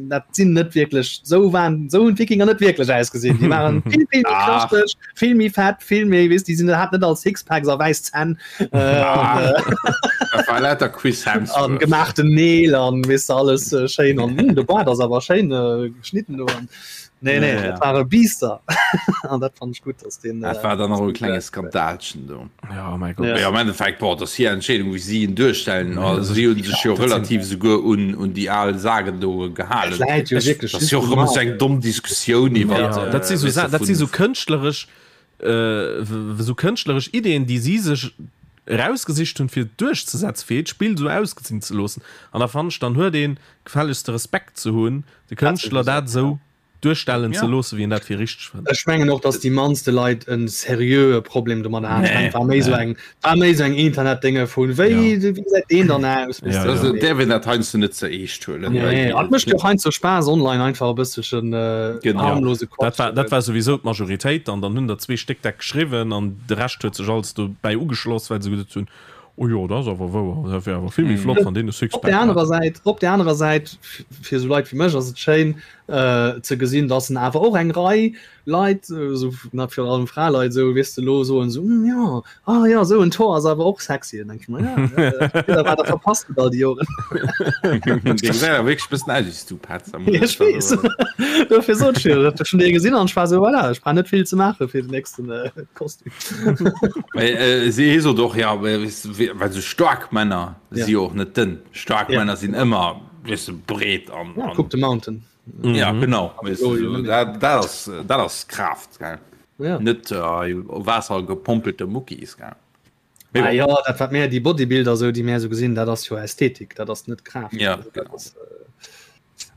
dat sinn net wierklech, sou waren, sou hunn d'Wikinger net wierklech ausgesinn. Déi waren vill, vill méi Ach. knaschteg, vill méi fett, vill méi, weess, déi sinn, haten net all Sixpacks a wäiss Zänn äh, an, äh, Dat war lauter Chris an Hemsworth. gemaachten Neel an weess de, alles äh, schéin an hm, de Bart ass awer schéin äh, geschnitten do an Nee, nee, Ja, ja. dat ware Biester. An dat fand ich gut, dass den. Dat war dann nach e klenge Skandalchen do. Ja, oh mein Gott. Ja. Ja, am Endeffekt, boah, dat ass hir Entscheedung, wéi si en duerstellen. Also, si hunn sech jo dat sinn- relativ souguer un, un déi al Sagen do gehalen. Läit jo wierklech Dat ass jo och ëmmer sou eng domm Diskussioun iwwer. Ja, dat si sou weess Sa de, dat si vun- sou kënschtleresch äh, w- sou kënschtleresch Ideen, déi si sech erausgesicht hunn, fir et duerchzesetzen, fir hiert Spill sou ausgesinn ze loossen. An da fannen ech, dann huet ee gefällegst de Respekt ze hunn, de Kënschtler dat esou duerstellen ze loossen, wéi en dat fir richteg fënnt. Ech mengen och, datt déi mannste Leit e seriöe Problem domadder haten. Ech mengen, et war méi esou eng, war méi esou eng Internetdénge vun, wéi, wéi gesäit deen dann aus? Ja, Also, ja. däerf een dat heiansdo net ze eescht huelen. Nee, et mécht jo och heiansdo Spaass, online einfach e bësselchen Genau. harmlose Dat Quatsch. war, dat war souwisou d'Majoritéit an dann hunn der zwee Stéck dat geschriwwen an de Rescht huet sech alles dobäi ugeschloss, well se geduet hunn, Oh jo, dat ass awer wouer. Dat wär awer vill méi flott, wann deen e Op Sixpack der hätt. anerer Säit, op der anerer Säit, fir esou Leit wéi mech ass et schéin ze gesinn, dass en awer och eng Rei Leit, esou na virun allem Fraleit esou, weess de, elo soen esou, hm jo, ah jo, esou en Tor ass awer och sexy. Dann denke ech mer, ja, ja, wat der verpasst hutt all déi Joren. Dee gesäit awer wierklech e bëssen aus wéi s du, Petz. Ja, ech weess. Dofir sot ech jo, dat ech schonn dee gesinn an ech war esou, voilà, ech brauch net vill ze maache fir den nächsten Kostüm. Si sot och ja well sou staark Männer ja. si och net dënn. Staark ja. Männer sinn ëmmer wis du breet an ja, kuck de Mountain. Mhm. Ja genau weißt du, so, dat, dat ass dat ass Kraaft gell. Ja. Net äh, Waasser gepompelte Muckis gell. Ah, ja, dat wat mär déi Bodybuilder sou déi mär sou gesinn, dat ass jo Ästhetik, dat ass net Kraaft. Ja, also, dat genau. ass, äh,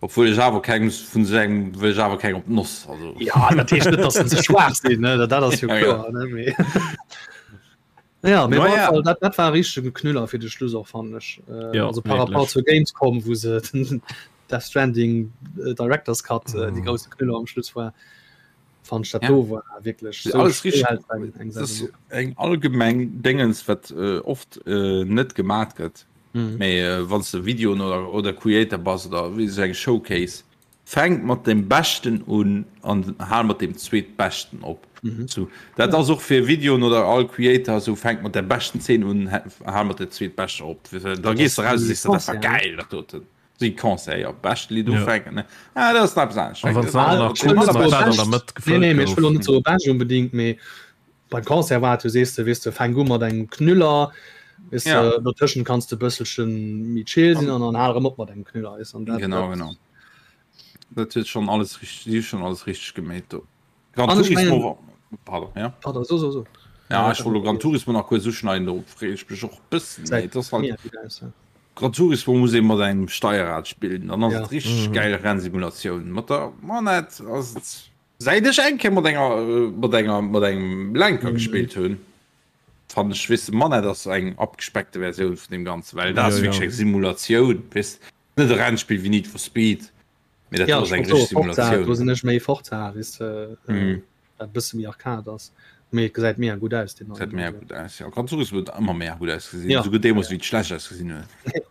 Obwuel ech awer keng vun sou engem wëll ech awer keng op d'Noss also. Ja dat heescht net, datt se schwaach sinn ne dat ass jo Ja, kloer ne mee Ja mee No op alle ja. Fall dat dat war e richtege Knüller fir de Schluss och fannen ech äh, Ja, also par rapport wierklech. zur Gamescom wou se den Death Stranding äh, Director's Cut äh, déi Mhm. grousse Knüller am Schluss war fand ech dat Ja. do war wierklech Alles sou richtig. schéi halt eng eng Das ass Sendung. eng allgemeng Déngens wat äh, oft äh, net gemat gëtt. Mhm. Mee äh, wann s de Videoen oder, oder Creator bass oder wéi sou eng Showcase, fänk mat dem Beschten un an hal mat dem zweetbeschten op. Mhm. So, dat ass och fir Videoen oder all Creator sou, fänk mat der beschten Zeen un, hal mat der zweetbeschter op. Da gees de raus a sees de, dat war geil, dat doten. Si Concert, jo, bescht Lidd Ja. ufänken, ne? Ah, dat ass nach eppes anescht. An wann Fänk se mat nach der kurz beschten mat dat an der Mëtt Nee, gefëllt nee, mee ech gouf. wëll och net soe bescht unbedingt, mee beim Concert war et jo, sees de, weess de, fänk u mat engem Knüller, weess Ja. de, dotëschent kanns de e bësselche méi chill sinn an dann hal erëm op mat engem Knüller, weess an dat, Genau, dat genau. Dat huet schonn alles richteg, si hu schonn alles richteg gemeet do. Gran An ech Turismo mengen, war, pardon, ja. pardon, so, so, so. Ja, ech wollt lo Gran Turismo nach kuerz uschneiden, do freeë ech mech och e bëssen, mee Säit et ass halt, mega gutt aus, ja. Gran Turismo muss ee mat engem Steierrad spillen, dann ass Ja. et richteg geil Rennsimulatioun. Mat der Manette ass et, säit ech eng Kéier mat enger, mat enger, mat engem Lenker gespillt hunn, fannen ech, weess de, Manette ass eng abgespeckte Versioun vun deem Ganzen, well dat Ja, ass ja. wierklech eng Simulatioun, weess de, net e Rennspill wéi Need for Speed, mee dat Ja, do ass ech eng wollt soe richteg Forza, do Simulatioun. sinn ech méi Forza, weess de, Mhm. wat e bësse méi Arcade ass. Mee et gesäit mega gutt aus, deen Gesäit neien. mega Also. gutt aus, jo. Gran Turismo huet ëmmer mega gutt ausgesinn, Ja. esouguer deemools wéi et schlecht ausgesinn huet.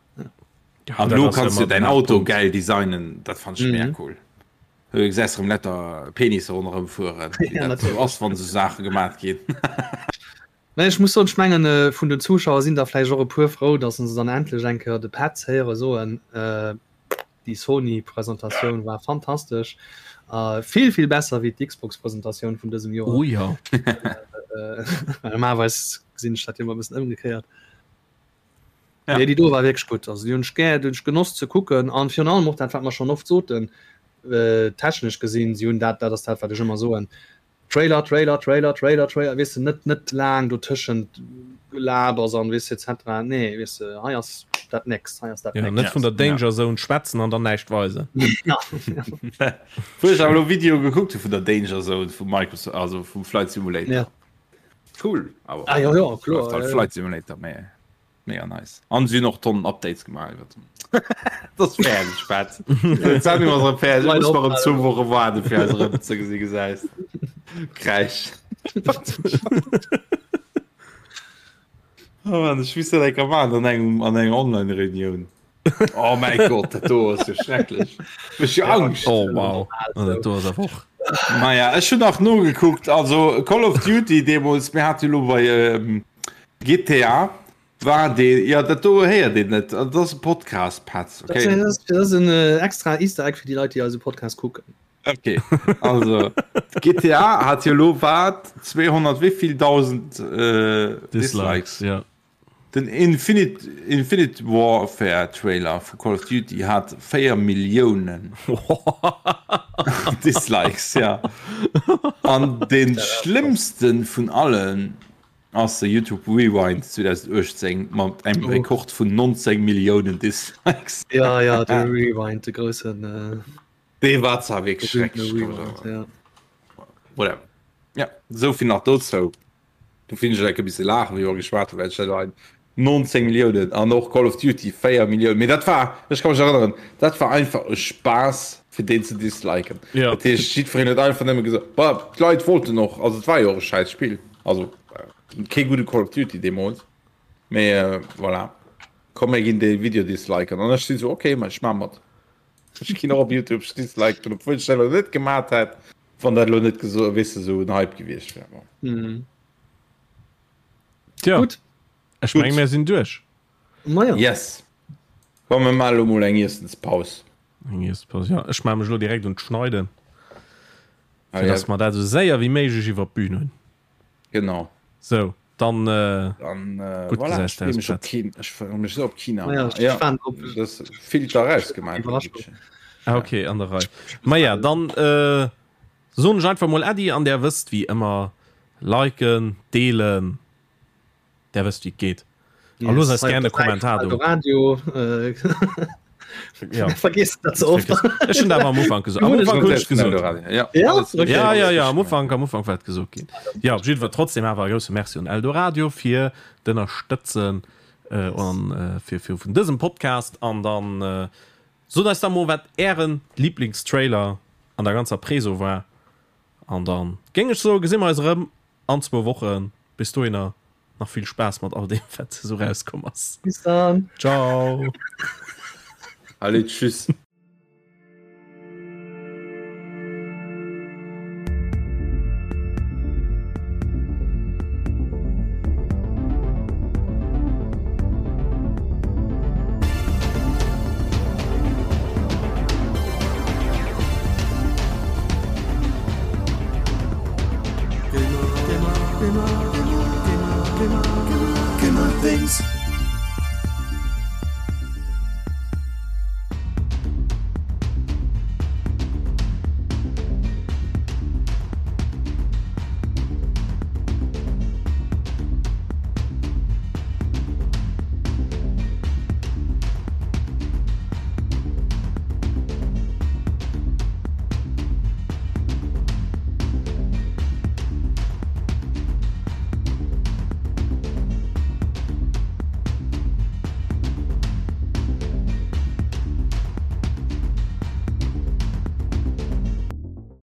Ja. An elo kanns du däin Auto gäil designen, dat fannt ech mega cool. Du gesäis erëm lauter Penisse ronderëm fueren, wéi dat esou ass, wann esou Saache gemat ginn. Mä ech muss soen, ech mengen, vun den Zuschauer sinn der vläicht och e puer frou, datt se dann endlech eng Kéier de Petz héiere soen, Déi Sony-Presentatioun war fantastesch a vill, vill besser wéi d'Xbox-Presentatioun vun dësem Joer. Oh jo. Normalerweis gesinn ech dat jo ëmmer e bëssen ëmgekéiert. Ja. Nee, déi do war wierklech gutt. Also déi hunn ech gär, déi hunn ech genoss ze kucken an virun allem och dat, wat mer schonn oft soten, äh, technesch gesinn, si hunn dat, dat ass dat, wat ech ëmmer soen, Trailer, Trailer, Trailer, Trailer, Trailer, weess de, net, net laang dotëschent Gelabers an weess de et cetera. Nee, weess de, hei ass dat nächst, hei ass dat Ja, net nächst. vun der Danger Zone schwätzen an dann näischt weisen. Ja. Wou ech awer elo Video gekuckt hu vun der Danger Zone vu Microsoft, also vum Flight Simulator. Ja. Cool, awer Ah, ja, ja, kloer, läuft halt ja, ja. Flight Simulator, mee mega nice. An si hunn och Tonnen Updates gemaach iwwert den. Dat ass fäerdeg, Spatz. D'Sendung ass erëm fäerdeg. Ech muss nach erëm zwou Woche waarden, fir eis erëm ze gesi gesäis. Kräisch. Oh Mann, ech misst dat eng Kéier maachen an engem, an enger Online-Reunioun. Oh mäi Gott, dat do ass jo schrecklech. Mech jo Angscht. Oh wow, dat do ass awer och. Maja, ech hunn nach nogekuckt, also Call of Duty deemools, mir hate jo elo bei ähm, GTA war dee, ja dat do héiert een net, dat ass e Podcast, Petz, okay? Dat ass, dat ass en äh, extra Easter Egg fir déi Leit, déi eise Podcast kucken. Okay, also GTA hat jo elo wat 200 wéivill 1000 äh, Dislikes, ja. Den Infinite, Infinite Warfare Trailer vu Call of Duty hat 4 Milliounen Dislikes, ja. An den schlëmmsten vun allen ass de YouTube Rewind 2018 mat engem Rekord vun 19 Milliounen Dislikes. Ja, ja, de Rewind, de groussen. Äh, Dee war zwar wierklech schrecklech. Rewind, ja. Voilà. Ja, esou vill nach dozou. Do finn ech e bisse laachen, wéi mer geschwat hunn, well ech dat ein 19 Milliounen an och Call of Duty 4 Milliounen. Mee dat war, ech ka mech erënneren, dat war einfach e Spaass fir deen ze disliken. Ja. Dat heescht, jiddwereen huet einfach nëmme gesot, bah, d'Leit wollten och, also et war jo och e schäiss Spill, also kee gudde Call of Duty deemools, mee voilà, komm mir ginn dee Video disliken. An ech sinn esou, okay, ma ech maa mat. Ech ginn och op Youtube, ech disliken, obwuel ech dat elo net gemat hätt. Wann dat elo net geso weess de sou en Hype gewiescht wär. Bon. Mhm. Tja, Gutt. ech meng mir sinn duerch. Maja. Yes. Komm mir maache lo mol eng Iessenspaus. Eng Iessenspaus, ja. Ech maache mech elo direkt un d'Schneiden, Ah, fir ja. dass mer dat esou séier wéi méiglech iwwer d'Bün hunn. Genau. Sou, dann, äh, Dann äh, gutt voilà, gesäis ech freeë aus, mech op Petz. China. Ech freeë mech sou op China. Maja, ech Ja, waren op das Filter rausgemaach. Iwwerraschung. Ah, okay, an der Rei. Maja, dann äh, soen ech einfach mol Äddi an där wësst wéi ëmmer, liken, deelen, där wësst wéi et geet. A Yes, loosst eis hei op gären e der Säit vum Kommentar do. Eldoradio. Äh, Ja. Vergiss dat ze oft. Ech hunn dat awer am Ufank gesot. Am Ufank hunn ech gesot. Ja, Ja? alles Okay. Ja, ja, ja, am Ufank, am Ufank war et gesot ginn. Ja, op jiddwer trotzdem awer e grousse Merci un Eldoradio fir d'Ënnerstëtzen äh, an äh, fir, fir vun dësem Podcast an dann äh, Sot eis da mol wat ären Lieblingstrailer an der ganzer Preso war an dann géing ech soen gesi mer eis erëm an zwou Wochen. Bis dohinner nach vill Spaass mat all deem wat esou rauskomm ass. Bis dann. Ciao. Allez, tschüss. Gamer, Gamer, Gamer, Gamer, Gamer, Gamer, Gamer things.